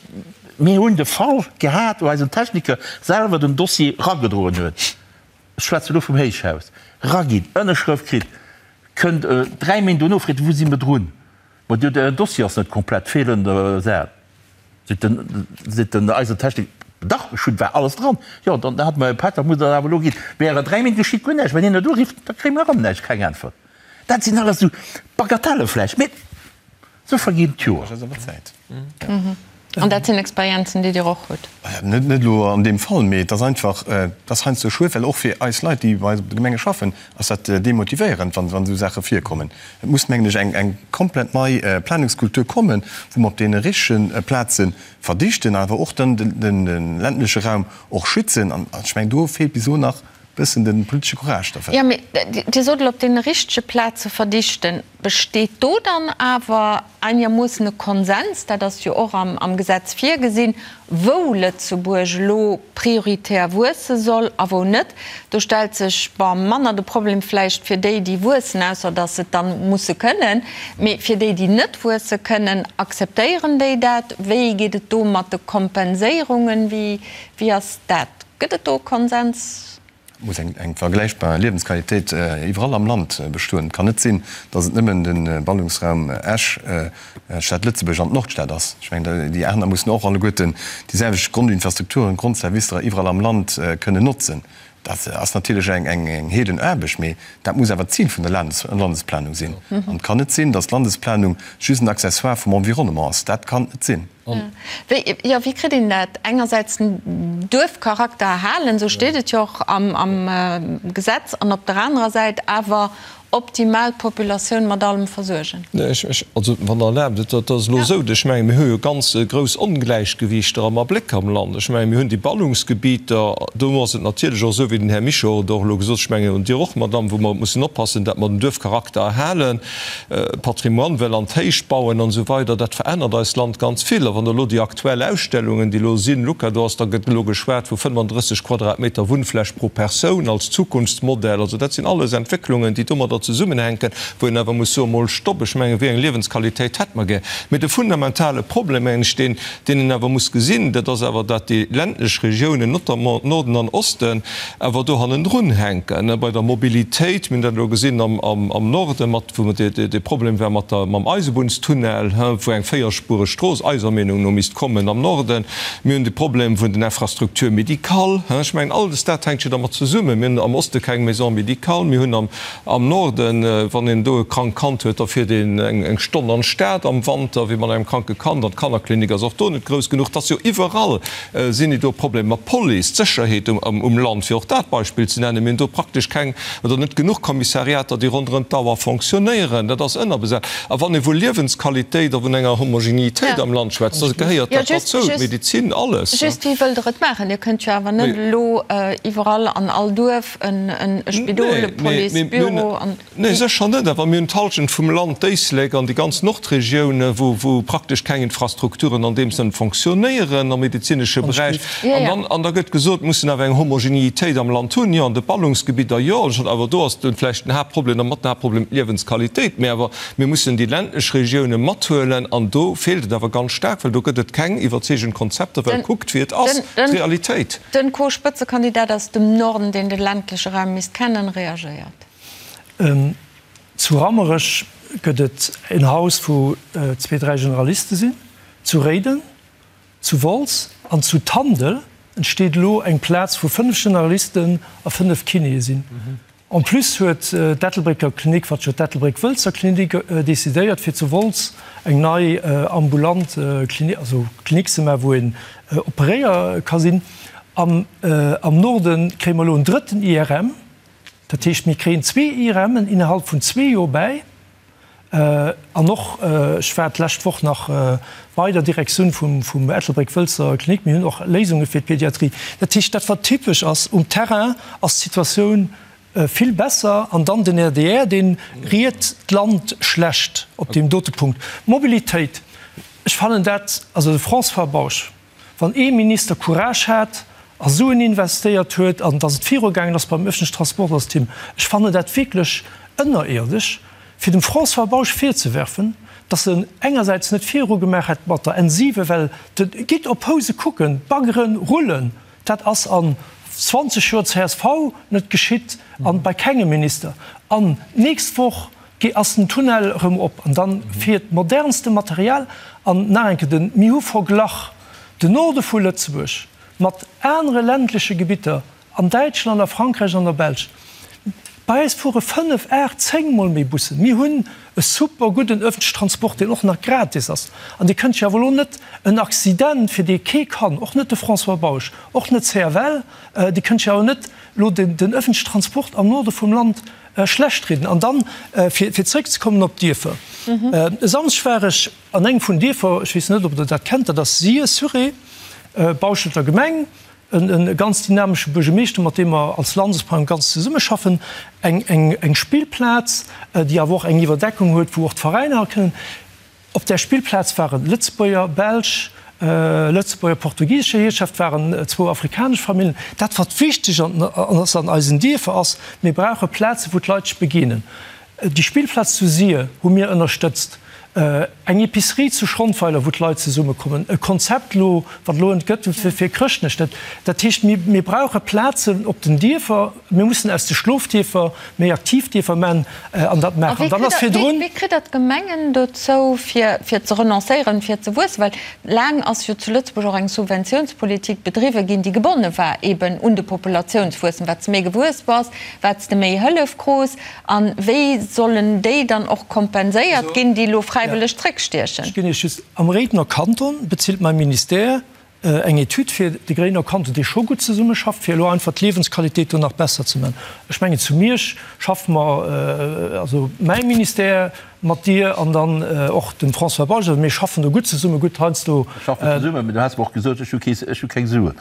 mir hunn de Fall gehat, wou eisen Techniker selwer den Dossier eragedroen huet, ech schwätze elo vum Héichhaus, eraginn, Ënnerschrëft kritt, kënnt dräi Méint dono, freet, wou si mer drun? Ma du, den Dossier ass net komplett, feelen Saachen. Seet den, seet den eisen Technik, dach, ech hunn, war alles dran. Jo, dann hat mer e Pak, dat muss der awer elo ginn. Während 3 Méint geschitt guer näischt. Wenn een net urifft, da kréie mer erëm näischt, keng Äntwert. Dat sinn alles esou Bagatelle vläicht, mee esou verginn d'Joer. An dat sinn Experienzen, déi Dir och hutt? Net elo an deem Fall, mee et ass einfach, et ass heiansdo schued, well och fir eis Leit, déi bei eis op de Gemenge schaffen, ass dat demotivéierend, wann esou Saache virkommen. Et muss, mengen ech, eng komplett nei Planungskultur kommen, wou mer op deene richtege Plaze verdichten, awer och dann de ländleche Raum och schützen. An ech mengen, do feelt bis elo nach e bëssen de politesche Courage derfir. Jo, mee Dir sot elo, op deene richtege Plaze verdichten. Besteet do dann awer einermoossen e Konsens, dat ass jo och am Gesetz virgesinn, wou Lëtzebuerg elo prioritär wuesse soll a wou net? Do stellt sech, bon, manner de Problem vläicht fir déi, déi wuessen, ausser datt se et dann musse kënnen, mee fir déi, déi net wuesse kënnen, akzeptéieren déi dat? Wéi geet et do mat de Kompenséierungen? Wéi ass dat? Gëtt et do e Konsens? Et muss eng vergläichbar Liewensqualitéit iwwerall am Land bestoen. Et kann net sinn, datt et nëmmen de Ballungsraum Esch, d'Stad Lëtzebuerg an d'Nordstad ass. Ech mengen, déi aner mussen och alleguerten déi selwecht Grondinfrastrukturen, Grondservicer iwwerall am Land kënnen notzen. Dat ass natierlech eng Heedenaarbecht, mee dat muss awer d'Zil vun der Landesplanung sinn. An et kann net sinn, datt d'Landesplanung just en Accessoire vum Environnement ass. Dat kann et net sinn. Wéi, jo, wéi kritt een dat engersäits den Duerfcharakter erhalen, esou steet et jo och am Gesetz, an op der anerer Säit awer optimal d'Populatioun mat allem versuergen? Nee, ech, ech, also wann Der erlaabt, et ass elo esou, ech mengen, mir hu jo ganz grouss Ongläichgewiichter am Abléck am Land. Ech mengen, mir hunn déi Ballungsgebieter, do ass et natierlech och esou, wéi den Här Mischo et och elo gesot huet, ech mengen, und Dir och, Madamm, wou mer mussen oppassen, dat mer den Duerfcharakter erhalen, Patrimoine well an d'Héicht bauen an esou weider, dat verännert eist Land ganz vill. A wann Der elo déi aktuell Ausstellungen, déi elo sinn, Luca, do ass, da gëtt elo geschwat vu 35 Quadratmeter Wunnfläch pro Persoun als Zukunftsmodell. Also dat sinn alles Entwécklungen, déi domadder zesummenhänken, wou een awer muss soen, mol Stopp, ech mengen, wéi eng Liewensqualitéit hätt mer gär? Mee de fundamentale Problem, mengen ech, deen, deen een awer muss gesinn, dat ass awer, dat déi ländlech Regiounen, notamment Norden an Osten, awer do hannendrun hänken bei der Mobilitéit. Mir hunn dat elo gesinn am Norde mat, wou dee Problem war mat der, mam Eisebunnstunnel, wou eng véierspuereg Strooss eiser Meenung no misst kommen am Norden. Mir hunn de Problem vun den Infrastructures médicales. Ech mengen, alles dat hänkt jo dermat zesummen. Mir hunn am Oste keng Maison médicale, mir hunn am Norden, wann een do e krankt Kand huet, da fiert een eng Stonn an d'Stad am Wanter, wéi mat engem kranke Kand, an d'Kannerklinik ass och do net grouss genuch. Et ass jo iwwerall Sinn et do Problemer mat Police, d'Sécherheet um Land, fir och dat Beispill ze nennen? Mir hunn do praktesch keng oder net genuch Kommissariater, déi ronderëm d'Auer fonctionnéieren. Dat ass ënnerbesat. A wann ee vu Liewensqualitéit a vun enger Homogenitéit am Land schwätzt, da gehéiert dat derzou, d'Medezin, alles. Just, wéi wëllt Der et maachen? Dir kënnt jo awer net elo iwwerall an all Duerf e Spidol, e Policebüro an. Nee, sécher net. Awer mir hunn d'Halschent vum Land, d'Éislek an déi ganz Nordregioun, wou praktesch keng Infrastrukturen an deem Sënn fonctionnéieren am medezinesche Beräich. An dann, an da gëtt gesot, mir mussen awer eng Homogenitéit am Land hunn. Jo, an de Ballungsgebidder, jo, awer do ass vläicht den Haaptproblem, oder mat den Haaptproblem, d'Liewensqualitéit. Mä awer mir mussen déi ländlech Regioune mathuelen an do feelt et awer ganz staark, well do gëtt et keng iwwerzeegend Konzepter, well kuckt, wéi et ass, d'Realitéit. Den Co-Spëtzekandidat aus dem Norden, deen de ländleche Raum misst kennen, reagéiert. Zu Rammerech gëtt et en Haus, wou zwee, dräi Generaliste sinn, zu Réiden, zu Wolz an zu Tandel entsteet elo eng Plaz, wou fënnef Generalisten a fënnef Kinéë sinn. En plus huet d'Ettelbrécker Klinik, wat jo d'Ettelbréck-Wëlzer Klinik, decidéiert, fir zu Wolz eng nei ambulant Klinik, also Klinik ze maachen, wou een operéier ka sinn. Am Norde kréie mer elo en drëtten IRM. Dat heescht, mir kréien zwee IRMen innerhalb vun zwee Joer bäi. An och, ech war d'lescht Woch nach bei der Direktioun vum Ettelbréck-Wëlzer Klinik, mir hunn och Léisunge fir d'Pediatrie. Dat heescht, dat wat typesch ass, um Terrain ass d'Situatioun vill besser. An dann den RDR, dee riet d'Land schlecht op deem dote Punkt. Mobilitéit, ech fannen dat, also de François Bausch, Wann ee Minister Courage hat a Suen investéiert huet an datt et virugaangen ass beim öffentlichen Transport, ass et him. Ech fannen dat wierklech ënnerierdesch, fir dem François Bausch virzewerfen, datt en engersäits net virugemaach hätt mat der N7, well de, gitt op Housen kucken, d'Baggere rullen, dat ass an 20 Joer csv net geschitt an bei kengem Minister. An d'nächst Woch Ge ass den Tunnel erëm op an dann fiert modernste Material an nach eng Kéier den, mir hu verglach den Norde vu Lëtzebuerg mat anere ländleche Gebitter an Däitschland, a Frankräich an der Belsch. Bei eis fuere 5, 8, 10 mol méi Bussen. Mir hunn e super gudden öffentlichen Transport, deen och nach gratis ass. An Dir kënnt jo awer elo net en Accident, fir dee kee kann, och net de François Bausch, och net d'CFL, Dir kënnt jo awer net elo den öffentlichen Transport am Norde vum Land schlecht rieden. An dann, fir zréckzekommen op d'Dierfer, E Samschdeg war ech an engem vun Dierfer, ech weess net, ob Der dat kennt, dat ass Sir-sur-Ré, Bauschelter Gemeng, e ganz dynamesche Buergermeeschter, mat deem mer als Landesplanung ganz zesummeschaffen, eng Spillplaz, déi awer och eng Iwwerdeckung huet, wou och d'Veräiner kënnen. Op där Spillplaz waren Lëtzebuerger, Belsch, Lëtzebuerger, portugisescher Hierschäft, waren zwou afrikanesch Famillen. Dat wat wichteg ass an eisen Dierfer ass, mir brauche Plazen, wou d'Leit sech begéinen. Déi Spillplaz zu Sir hu mir ënnerstëtzt, eng Epicerie zu Schrondweiler, wou d'Leit zesummekommen, e Konzept elo, wat elo entgëtt fir Chrëschtnech. Dat heescht, mir brauche Plazen op den Dierfer. Mir mussen aus de Schlofdierfer méi aktiv Dierfer man an dat maachen. Dann ass virdrun. Wéi kritt Der d'Gemengen dozou, fir ze renoncéieren, fir ze wuessen? Well laang ass jo zu Lëtzebuerg och eng Subventiounspolitik bedriwwe ginn, déi gebonne war eben un de Populatiounswuessem. Wat s de méi gewuess bass, wat s de méi Hëllef krus. A wéi sollen déi dann och kompenséiert ginn, déi elo frei. fräiwëlleg zréckstiechen. Ech ginn Iech just, am Réidener Kanton bezilt mäi Ministère eng Etüd fir de Gréiner Kanton, dee scho gutt zesummeschafft, fir elo einfach d'Liewensqualitéit do nach besser ze man. Ech mengen, zu Miersch schaffe mer, also mäi Ministère mat dir an dann och dem François Bausch, also mir schaffen do gutt zesumme, gutt heiansdo. Mir schaffen zesummen, mä du has mer och gesot, ech hu kee, ech hu keng Suen.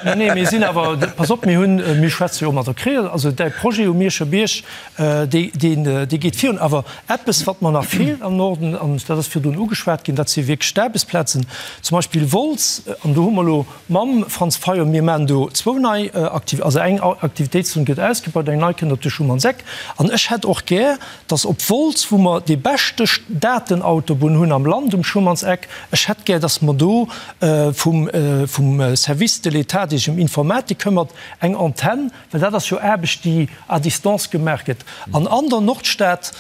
Nee, nee, mir sinn awer, pass op, mir hunn, mir schwätze jo och mat der CREAL, also däi Projet um Mierscher Bierg, Dee geet virun. Awer eppes, wat mer nach feelt am Norden, an dat ass virdrun ugeschwat ginn, dat si wierklech d'Aarbechtsplazen. Zum Beispill Wolz, an do hu mer elo mam Franz Fayot, mir maachen do zwou nei Aktiv-, also eng Aktivitéitszon gëtt ausgebaut, eng nei kënnt op de Schumannseck. An ech hätt och gär, datt op Wolz, wou mer déi beschte Datenautobunn hunn am Land um Schumannseck, ech hätt gär, datt mer do vum Service de l'État, dee sech ëm Informatik këmmert, eng Antenn, Well dat ass jo Aarbecht, déi à distance gemaach gëtt. An an der Nordstad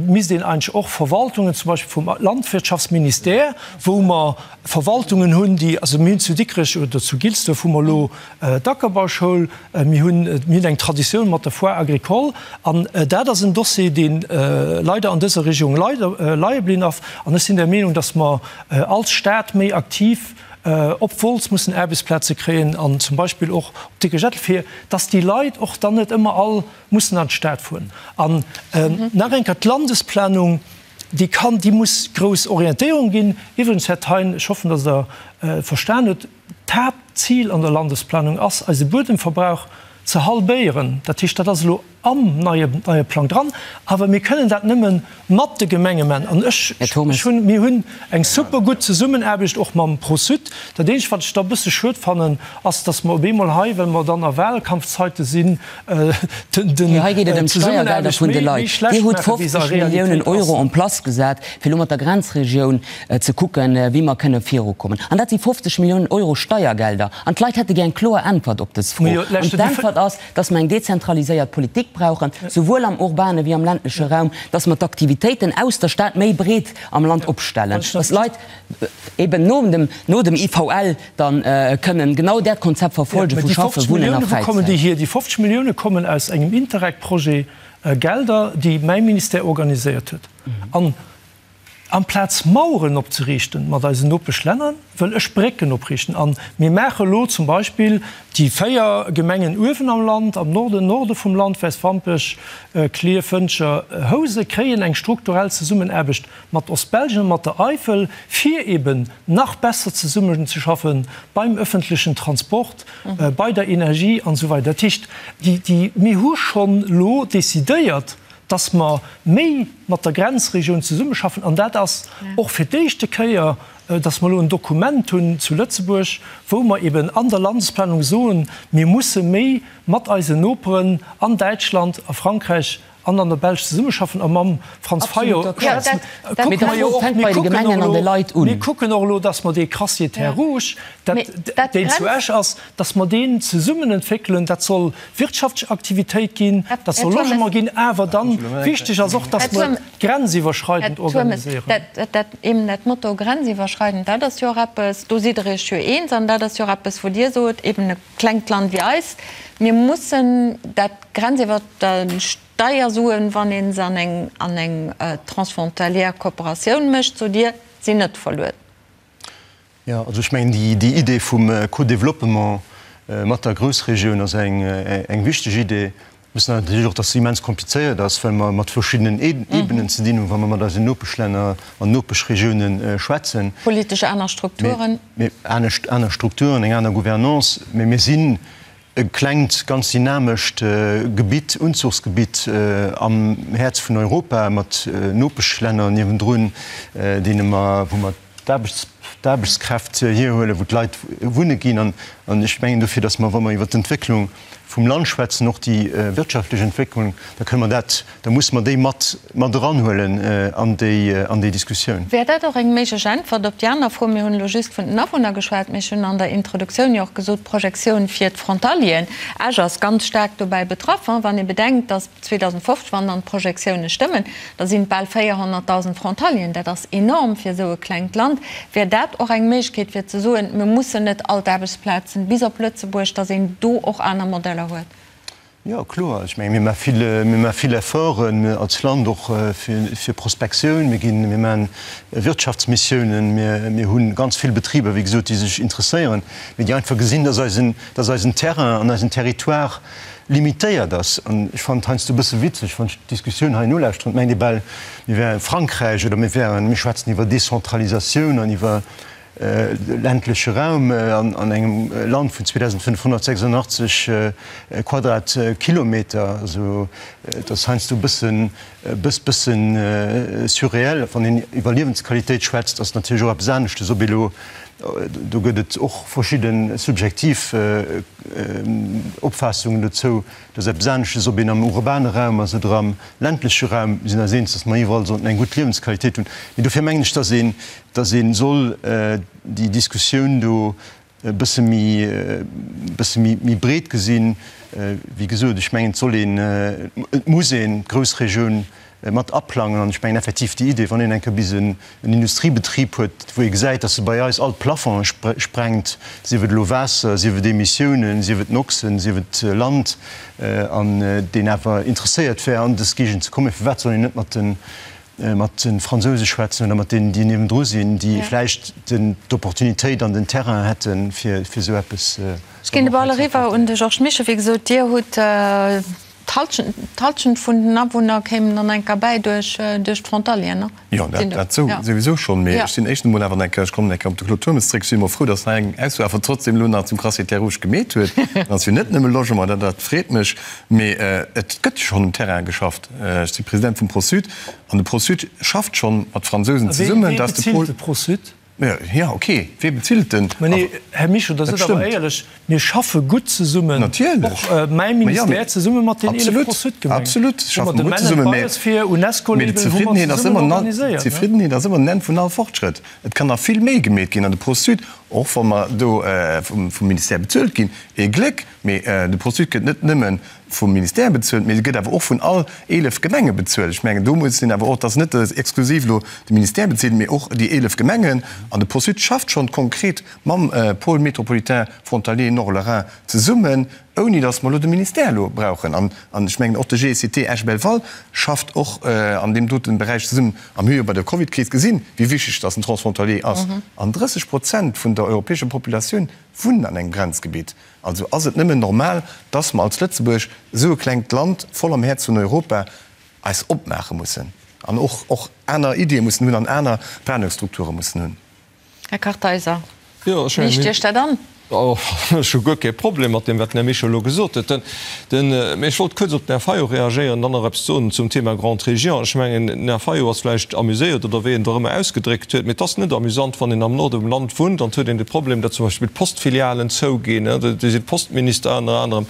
misst een eigentlech och Verwaltungen, zum Beispill vum Landwirtschaftsministère, wou mer Verwaltungen hunn, déi, also mir hunn zu Dikrech oder zu Gilsduerf hu mer elo d'Ackerbauschoul, mir hunn, mir hunn eng Traditioun mat der Foire agricole. An dat ass en Dossier, dee leider an dëser Regierung leider leie blinn ass. An ech sinn der Meenung, datt mer als Stad méi aktiv op Wolz mussen Aarbechtsplaze kréien an zum Beispill och op Dikrech-Ettel, fir dass déi Leit och dann net ëmmer all mussen an d'Stad fueren. An nach eng Kéier, d'Landesplanung, déi kann, déi muss grouss Orientéierung ginn. Iwwregens, Här Thein, ech hoffen, dass Der verstan hutt, d'Haaptzil an der Landesplanung ass, eise Buedemverbrauch ze halbéieren. Dat heescht, dat ass elo am neie neie Plang dran, awer mir kënnen dat nëmme mat de Gemenge man. An ech, ech hunn, mir hunn eng super gutt Zesummenaarbecht och mam Pro-Sud. Dat eenzegt, wat ech da e bësse schued fannen, ass, datt mer op eemol hei, well mer dann a Wahlkampfzeite sinn, den, den, Hei geet et ëm d'Steiergelder vun de Leit. Dir hutt 50 Milliounen Euro en place gesat, fir elo mat der Grenzregioun ze kucken, wéi mer kënne virukommen. An dat si 50 Milliounen Euro Steiergelder. An d'Leit hätte gär eng kloer Äntwert op dës Fro. An d'Äntwert ass, dass mer eng dezentraliséiert Politik brauchen, souwuel am urbane wéi am ländleche Raum, dass mer d'Aktivitéiten aus der Stad méi breet am Land opstellen, dass d'Leit eben no dem, no dem IVL dann kënnen genau dat Konzept verfolge vu Schaffen, Wunnen a Fräizäit. Déi 50 Millioune kommen aus engem Interreg-Projet, Gelder, déi mäi Ministère organiséiert huet. An Amplaz Maueren opzeriichten mat eisen Nopeschlänner, wëll ech Brécken opriichten. A mir maache elo zum Beispill déi 4 Gemengen uewen am Land, am Norden, Norde vum Land, Wäiswampech, Klierf, Wëntger, Housen, kréien eng strukturell Zesummenaarbecht mat Ostbelgien a mat der Eifel, fir eben nach besser zesummenzeschaffen beim öffentlechen Transport, bei der Energie an esou weider. Dat heescht, déi, mir hu schonn elo decidéiert, dass mer méi mat der Grenzregioun zesummeschaffen, an dat ass och fir d'éischte Kéier, dass mer elo en Dokument hunn zu Lëtzebuerg, wou mer eben an der Landesplanung soen, mir musse méi mat eisen Noperen an Däitschland, a Frankräich an an der Belsch zesummeschaffen. A mam Franz Fayot schwätzen, kucke mer jo och, mir kucken och elo, mir kucken och elo, dass mer dee Crassier Terres Rouges, dat, deen zu Esch ass, dass mer deen zesummen entwéckelen. Dat soll wirtschaftlech Aktivitéit ginn, dat soll Logement ginn, awer dann wichteg ass och, dass mer et grenziwwerschreidend organiséieren. Dat eben dat Motto grenziwwerschreidend, dat ass jo och eppes, do sidd Der Iech jo eens an dat ass jo och eppes, wou Dir sot, eben e klengt Land wéi eist, mir mussen dat grenziwwer Steiersuen, wann ee se an eng an eng transfrontalière Kooperatioun mécht, sot Dir, sinn net verluer. Jo, also ech mengen, déi Idee vum Co-développement mat der Groussregioun ass eng wichteg Idee. Mir wëssen natierlech och, dass se immens komplizéiert ass, well mer mat verschiddenen Ebenen ze dinn hunn, wa mer mat eisen Nopeschlänner an Nopeschregiounen schwätzen. Politesch aner Strukturen. Mee anescht, aner Strukturen, eng aner Gouvernance. Mee mir sinn e klengt, ganz dynamescht Gebitt, Unzuchsgebitt am Häerz vun Europa mat Nopeschlänner niewendrun, deene mer, wou mer d'Aarbechtskräft hierhuelen, wou d'Leit wunne ginn. An ech mengen dofir, datt mer, wa mer iwwert d'Entwécklung vum Land schwätzen, och déi wirtschaftlech Entwécklung, da kënne mer dat, da musse mer déi mat mat eranhuelen an déi an déi Diskussioun. Wär dat och eng méiglech Äntwert op déi aner Fro? Mir hunn elo just vun den Awunner geschwat, mee ech hunn an der Introduktioun jo och gesot, d'Projektioun fir d'Frontalieren. Esch ass ganz staark dobäi betraff, wann ee bedenkt, datt 2050, wann dann d'Projektioune stëmmen, da sinn et bal 400.000 Frontalieren. Dat ass enorm fir esou e klengt Land. Wär dat och eng Méiglechkeet fir ze soen, mir mussen net all d'Aarbechtsplazen bis op Lëtzebuerg, datt een do och aner Modeller huet? Jo, kloer. Ech menge mir maache vill, mir maache vill Efforten als Land och fir Prospektioun. Mir ginn, mir maachen Wirtschaftsmissiounen. Mir, mir hu ganz vill Betriber, wéi gesot, déi sech interesséieren, mee déi einfach gesinn, dass eisen, dass eisen Terrain an eisen Territoire limitéiert ass. An ech fannen et heiansdo e bësse witzeg, wann ech d'Diskussioun hei nolauschteren, et mengt ee bal, mir wäre Frankräich oder mir wären, mir schwätzen iwwer Decentralisatioun an iwwer ländleche Raum an engem Land vun 2.586 Quadratkilometer. Also et ass heiansdo e bëssen, e bëssen surréel. Wann een iwwer Liewensqualitéit schwätzt, ass natierlech och eppes aneschtes, ob ee lo, do gëtt et och verschidde subjektiv Opfaassungen dozou, Dat ass eppes aneschtes, ob een am urbane Raum ass oder am ländleche Raum. Mir sinn eis eens, datt mer iwwerall sollten eng gutt Liewensqualitéit hunn. Mee dofir mengen ech, datt een, datt ee soll déi Diskussioun do e bësse méi, e bësse méi, méi breet gesinn. Wéi gesot, ech mengen, et soll een, et muss een d'Groussregioun mat aplangen. An ech mengen effektiv déi Idee, wann een eng Kéier bis en Industriebetrib huet, wou ee gesäit, dass e bei eis all d'Plafonge sprengt, sief et elo Waasser, sief et Emissiounen, sief et Noxen, sief et Land, an deen awer interesséiert wär, an dës Géigend ze kommen, firwat soll een net mat de mat de Fransouse schwätzen oder mat deenen, déi niewendru sinn, déi vläicht d'Opportunitéit an den Terrain hätten, fir esou eppes. Ech ginn de Ball eriwwer un de Georges Mischo. Wéi gesot, Dir hutt D'Halschent vun den Awunner kéimen dann enker bäi duerch d'Frontalieren, ne? Jo, dat souwisou schonn. Mee ech sinn éischtens emol awer enker, ech kommen enker op de Claude Turmes zréck, ech sinn emol frou, datt hei eng Ausso awer trotzdem elo nach zum Crassier Terres Rouges gemeet huet. Dat ass jo net nëmme Logement, dat dat freet mech. Mee et gëtt jo schonn um Terrain geschafft. Ech si President vum Pro-Sud an de Pro-Sud schafft schonn mat Fransousen zesummen, datt de Pol. Wee bezilt de Pro-Sud? Jo, ok, wee bezilt den? Mä nee, Här Mischo, da sidd awer éierlech, mir schaffe gutt zesummen, och mäi Ministère zesumme mat den 11 Pro-Sud-Gemengen. Absolut, schaffe mer gutt zesummen, mä d'Zefriddenheet ass ëmmer, d'Zefriddenheet ass ëmmer den Enn vun all Fortschrëtt. Et kann nach vill méi gemeet ginn an de Pro-Sud, och wa mer do vum Ministère bezuelt ginn, ee Gléck, mee de Pro-Sud gëtt net nëmme vum Ministère bezuelt, mee se gëtt awer och vun all 11 Gemenge bezuelt. Ech mengen, do muss een awer och, et ass net exklusiv elo de Ministère bezilt, mee och déi 11 Gemengen. An de Pro-Sud schafft schonn konkret mam Pôle métropolitain frontalier Nord-Lorrain zesummen, ouni datt mer elo de Ministère elo brauchen. An ech mengen, och de GECT Esch-Belval schafft och an deem dote Beräich zesummen. A mir hu jo bei der Covidkris gesinn, wéi wichteg datt en Transfrontalier ass. An 30 Prozent vun der europäescher Populatioun wunnen an engem Grenzgebitt. Also ass et nëmmen normal, dass mer als Lëtzebuerg, esou e klengt Land voll am Häerz vun Europa, eis opmaache mussen an och och aner Iddie mussen hunn an aner Planungsstrukture mussen hunn. Här Kartheiser, liicht Iech dat an? Ech hu guer kee Problem mat deem, wat den Här Mischo elo gesot huet. Mee ech wollt kuerz op den Här Fayot reagéieren an dann nach eppes soen zum Thema Grande Région. Ech mengen, den Här Fayot ass vläicht amuséiert oder wéi en et och ëmmer ausgedréckt huet, mee et ass net amusant, wann een am Norde vum Land wunnt an et huet een de Problem, datt zum Beispill d'Postfilialen zouginn, do sinn d'Postminister ënner anerem,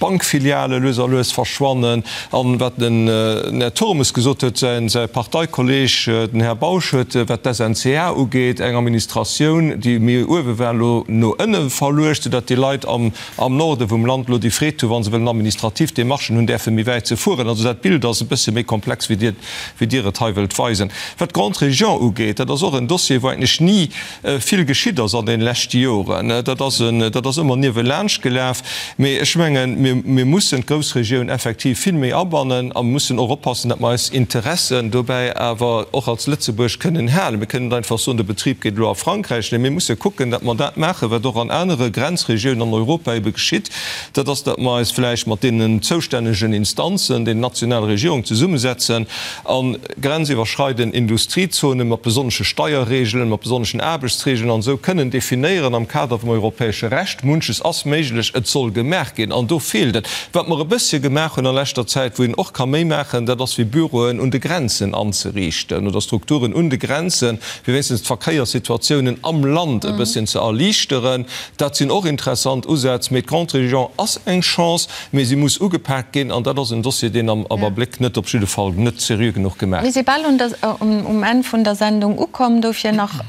d'Bankfiliale lues a lues verschwannen. An wat den Här Turmes gesot huet, säi Parteikolleeg, den Här Bausch, huet, wat d'SNCA ugeet, eng Administratioun, déi méi uewe war, elo no ënne verluecht, soudatt déi Leit am am Norde vum Land elo déi Freed hunn, wa se wëllen administrativ Demarchen hunn, däerfe méi wäit ze fueren. Also dat Bild ass e bësse méi komplex, wéi Dir, wéi Dir et hei wëllt weisen. Wat d'Grande Région ugeet, dat ass och en Dossier, wou eigentlech ni vill geschitt ass an deene leschte Joren. Dat ass en, dat ass ëmmer niewelaanscht gelaf. Mee ech mengen, mir, mir mussen d'Groussregioun effektiv vill méi abannen a mussen och oppassen, datt mer eis Interessen dobäi awer och als Lëtzebuerg kënnen halen. Mir kënnen net einfach soen, de Betrib geet elo a Frankräich. Nee, mir musse kucken, datt mer dat maachen, wat och an anere Grenzregiounen an Europa ebe geschitt, dat ass, datt mer eis vläicht mat deenen zoustännegen Instanzen, den nationale Regierungen zesummesetzen a grenziwwerschreidend Industriezonen mat besonnesche Steierregeln, mat besonneschen Aarbechtsregeln an esou kënnen definéieren am Kader vum europäesche Recht. Munches ass méiglech, et soll gemaach ginn an do feelt et. Wat mer e bëssche gemaach hunn a leschter Zäit, wou een och ka méi maachen, dat ass fir Büroen un de Grenzen anzeriichten oder Strukturen un de Grenzen, fir wéinstens d'Verkéierssituatiounen am Land e bësschen ze erliichteren. Dat sinn och interessant Usätz. Mee d'Grande Région ass eng Chance, mee si muss ugepaakt ginn. An dat ass en Dossier, deen am Abléck net, op jidde Fall net seriö genuch gemaach Mir si bal um Enn vun der Sendung ukomm. Dofir nach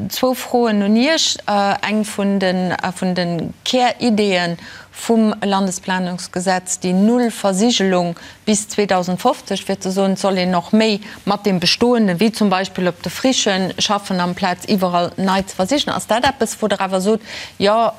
zwou Froen un Iech. Eng vun de Kärideeën vum Landesplanungsgesetz, déi Nullversigelung. Bis 2050, fir ze soen, et soll een och méi mat deem Bestoenden, wéi zum Beispill op de Frichen, schaffen, amplaz iwwerall nei ze versichen. Ass dat eppes, wou Der awer sot, jo,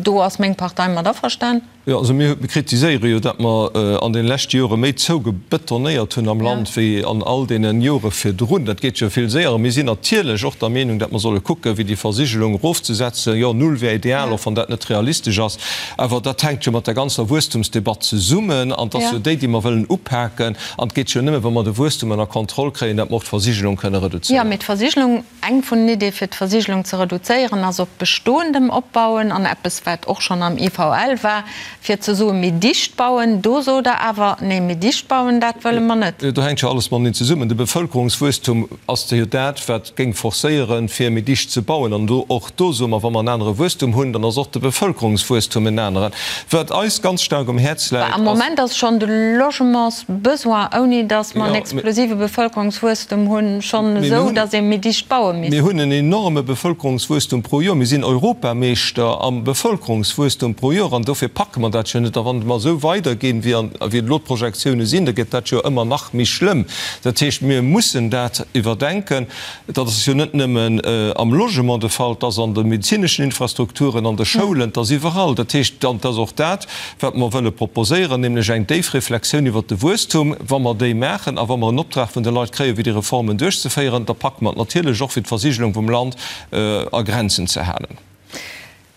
do ass meng Partei mat averstan? Jo, also mir kritiséiere jo, datt mer an deene leschte Jore méi zougebetonéiert hunn am Land wéi an all deene Jore virdrun. Dat geet jo vill séier. A mir sinn natierlech och der Meenung, datt mer solle kucken, fir déi Versigelung erofzesetzen. Jo, null wär ideal, och wann dat net realistesch ass. Awer dat hänkt jo mat der ganzer Wuesstumsdebatt zesummen an et ass jo déi, déi mer wëllen upaken. An et geet jo nëmme, wa mer de Wuesstum ënner Kontroll kréien, datt mer och d'Versigelung kënne reduzéieren. Jo, mee d'Versigelung, eng vun den Ideeë fir d'Versigelung ze reduzéieren, ass op Bestoendem opbauen an eppes, wat och schonn am IVL war, fir ze soen, méi dicht bauen. Do sot Der awer, Nee, méi dicht bauen, dat wëlle mer net. Do hänkt jo alles mateneen zesummen. De Bevëlkerungswuesstum ass jo dat, wat géing forcéieren, fir méi dicht ze bauen. An do, och do soe mer, wa mer en anere Wuesstum hunn, dann ass och de Bevëlkerungswuesstum en aneren. Wat eis ganz staark um Häerz läit, ass. Am Moment ass schonn de Logementsbesoin, ouni datt mer en explosive Bevëlkerungswuesstum hunn, schonn esou, datt ee méi dicht baue misst. Mir hunn en enorme Bevëlkerungswuesstum pro Joer. Mir sinn Europameeschter am Bevëlkerungswuesstum pro Joer. An dofir packe mer dat jo net. A wann mer esou weiderginn, wéi elo d'Projektioune sinn, da gëtt dat jo ëmmer nach méi schlëmm. Dat heescht, mir mussen dat iwwerdenken. Dat ass jo net nëmmen am Logement de Fall, et ass an de medezineschen Infrastrukturen, an de Schoulen, et ass iwwerall. Dat heescht, an et ass och dat, wat mer wëlle proposéieren, nämlech eng déif Reflexioun iwwert de Wuesstum. Wa mer déi maachen a wa mer en Optrag vun de Leit kréien, fir déi Reformen duerchzeféieren, da packe mer et natierlech och, fir d'Versigelung vum Land a Grenzen ze halen.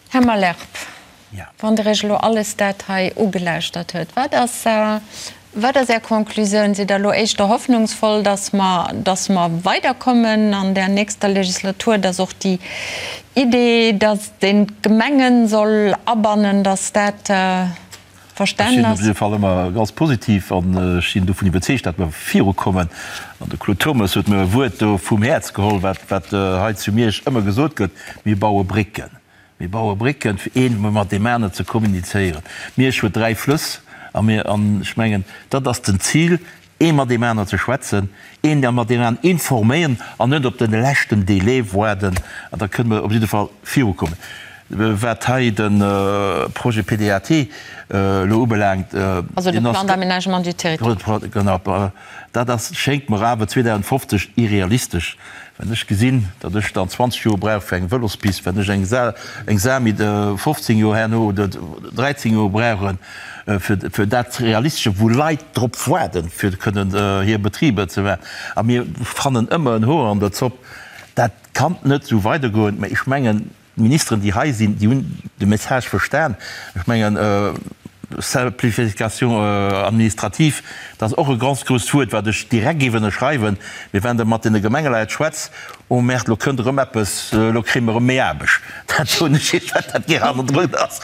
Här Malherbe, wann Der Iech elo alles dat hei ugelauschtert huet, wat ass, wat ass Är Conclusioun? Sidd Der elo éischter hoffnungsvoll, dass mer, dass mer weiderkommen an där nächster Legislatur, dass och déi Idee, dass een d'Gemengen soll abannen, dass dat Ech sinn op jidde Fall ëmmer ganz positiv an ech sinn dovun iwwerzeegt, datt mer virukommen. An de Claude Turmes huet mir e Wuert do vum Häerz geholl, wat, wat hei zu Miersch ëmmer gesot gëtt, Mir baue Brécken. Mir baue Brécken, fir een mat deem aneren ze kommunizéieren. Miersch huet 3 Flëss a mir, an ech mengen, dat ass den Zil, ee mat deem aneren ze schwätzen, een mat deem aneren informéieren an net op de leschten Délai waarden. An da kënne mer op jidde Fall virukommen. Wat hei de Projet PDAT elo ubelaangt, Also de Plan d'aménagement du territoire. Genau, dat ass, schéngt mer awer 2050 irrealistesch. Wenn ech gesinn, datt ech dann 20 Joer brauch fir eng Vëlospist, wenn ech eng Sami 15 Joer herno oder 13 Joer brauchen, fir dat Realistesche, wou Leit drop waarden, fir kënnen hir Betriber ze maachen, a mir fannen ëmmer en Hoer an der Zopp, dat kann net esou weidergoen. Mä ech mengen, d'Ministeren, déi hei sinn, déi hunn de Message verstan. Ech mengen, Simplification administrative, dat ass och e ganz grousst Wuert, wat ech direkt géif ënnerschreiwen. Mee wann Der mat deene Gemengeleit schwätzt, Oh Merde, lo kënnt erëm eppes, lo kréie mer erëm méi Aarbecht. Dat soen ech Iech, wat dat gär hannendrun ass.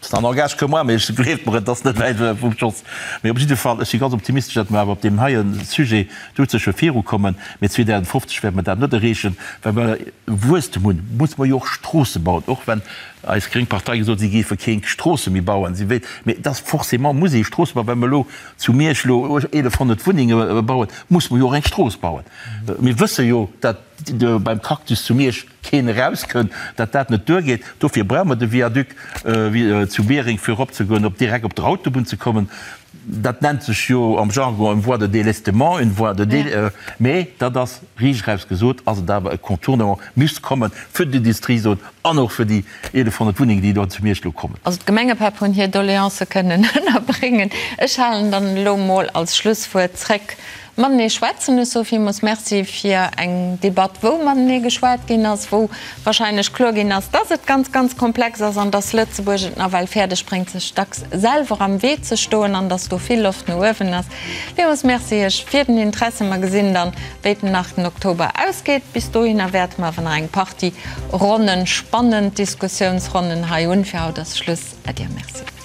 Ça n'engage que moi, mee gleeft mer, et ass net wäit vum Schoss. Mee op jidde Fall, ech si ganz optimistesch, datt mer awer op deem heie Sujet doudsécher virukommen. Mee 2050 wäerte mer dat net erreechen. Well mer Wuesstem hunn, musse mer jo och Stroosse bauen, och wenn eis gréng Partei gesot huet, si géife keng Stroosse méi bauen. Si wéilt, mee et ass forcément muss ee Stroosse bauen. Well mer elo zu Miersch elo 1.100 Wunnenge bauen, musse mer jo och eng Strooss bauen. Mir wësse jo, datt beim Cactus zu Miersch keen erauskënnt, datt dat net duergeet. Dofir brauche mer de Viaduc zu Biereng, fir eropzegoen, op direkt op der Autobunn ze kommen. Dat nennt sech jo am Jargon une voie de délestement, une voie de dé, mee dat ass riicht eraus gesot, ass et awer e Contournement, misst kommen fir d'Industriezon an och fir déi 1.100 Wunnengen, déi do zu Miersch elo kommen. Also d'Gemengepäpp hunn hir Doleancë kënnen ënnerbréngen. Ech halen dann elo mol als Schlusswuert zréck Matenee schwätzen. Ech soe villmools Merci fir eng Debatt, wou matenee geschwat ginn ass, wou wahrscheinlech kloer ginn ass, dass et ganz, ganz komplex ass an dass Lëtzebuerg et nawell fäerdeg bréngt, sech dacks selwer am Wee ze stoen an dass do vill Loft no uewen ass. Villmools Merci Iech fir den Interesse. Mer gesinn dann, wéi den 8 Oktober ausgeet. Bis dohinner wäerte mer awer nach eng Partie Ronnen, spannend Diskussiounsronnen hei hunn. Fir haut ass Schluss. Äddi a Merci.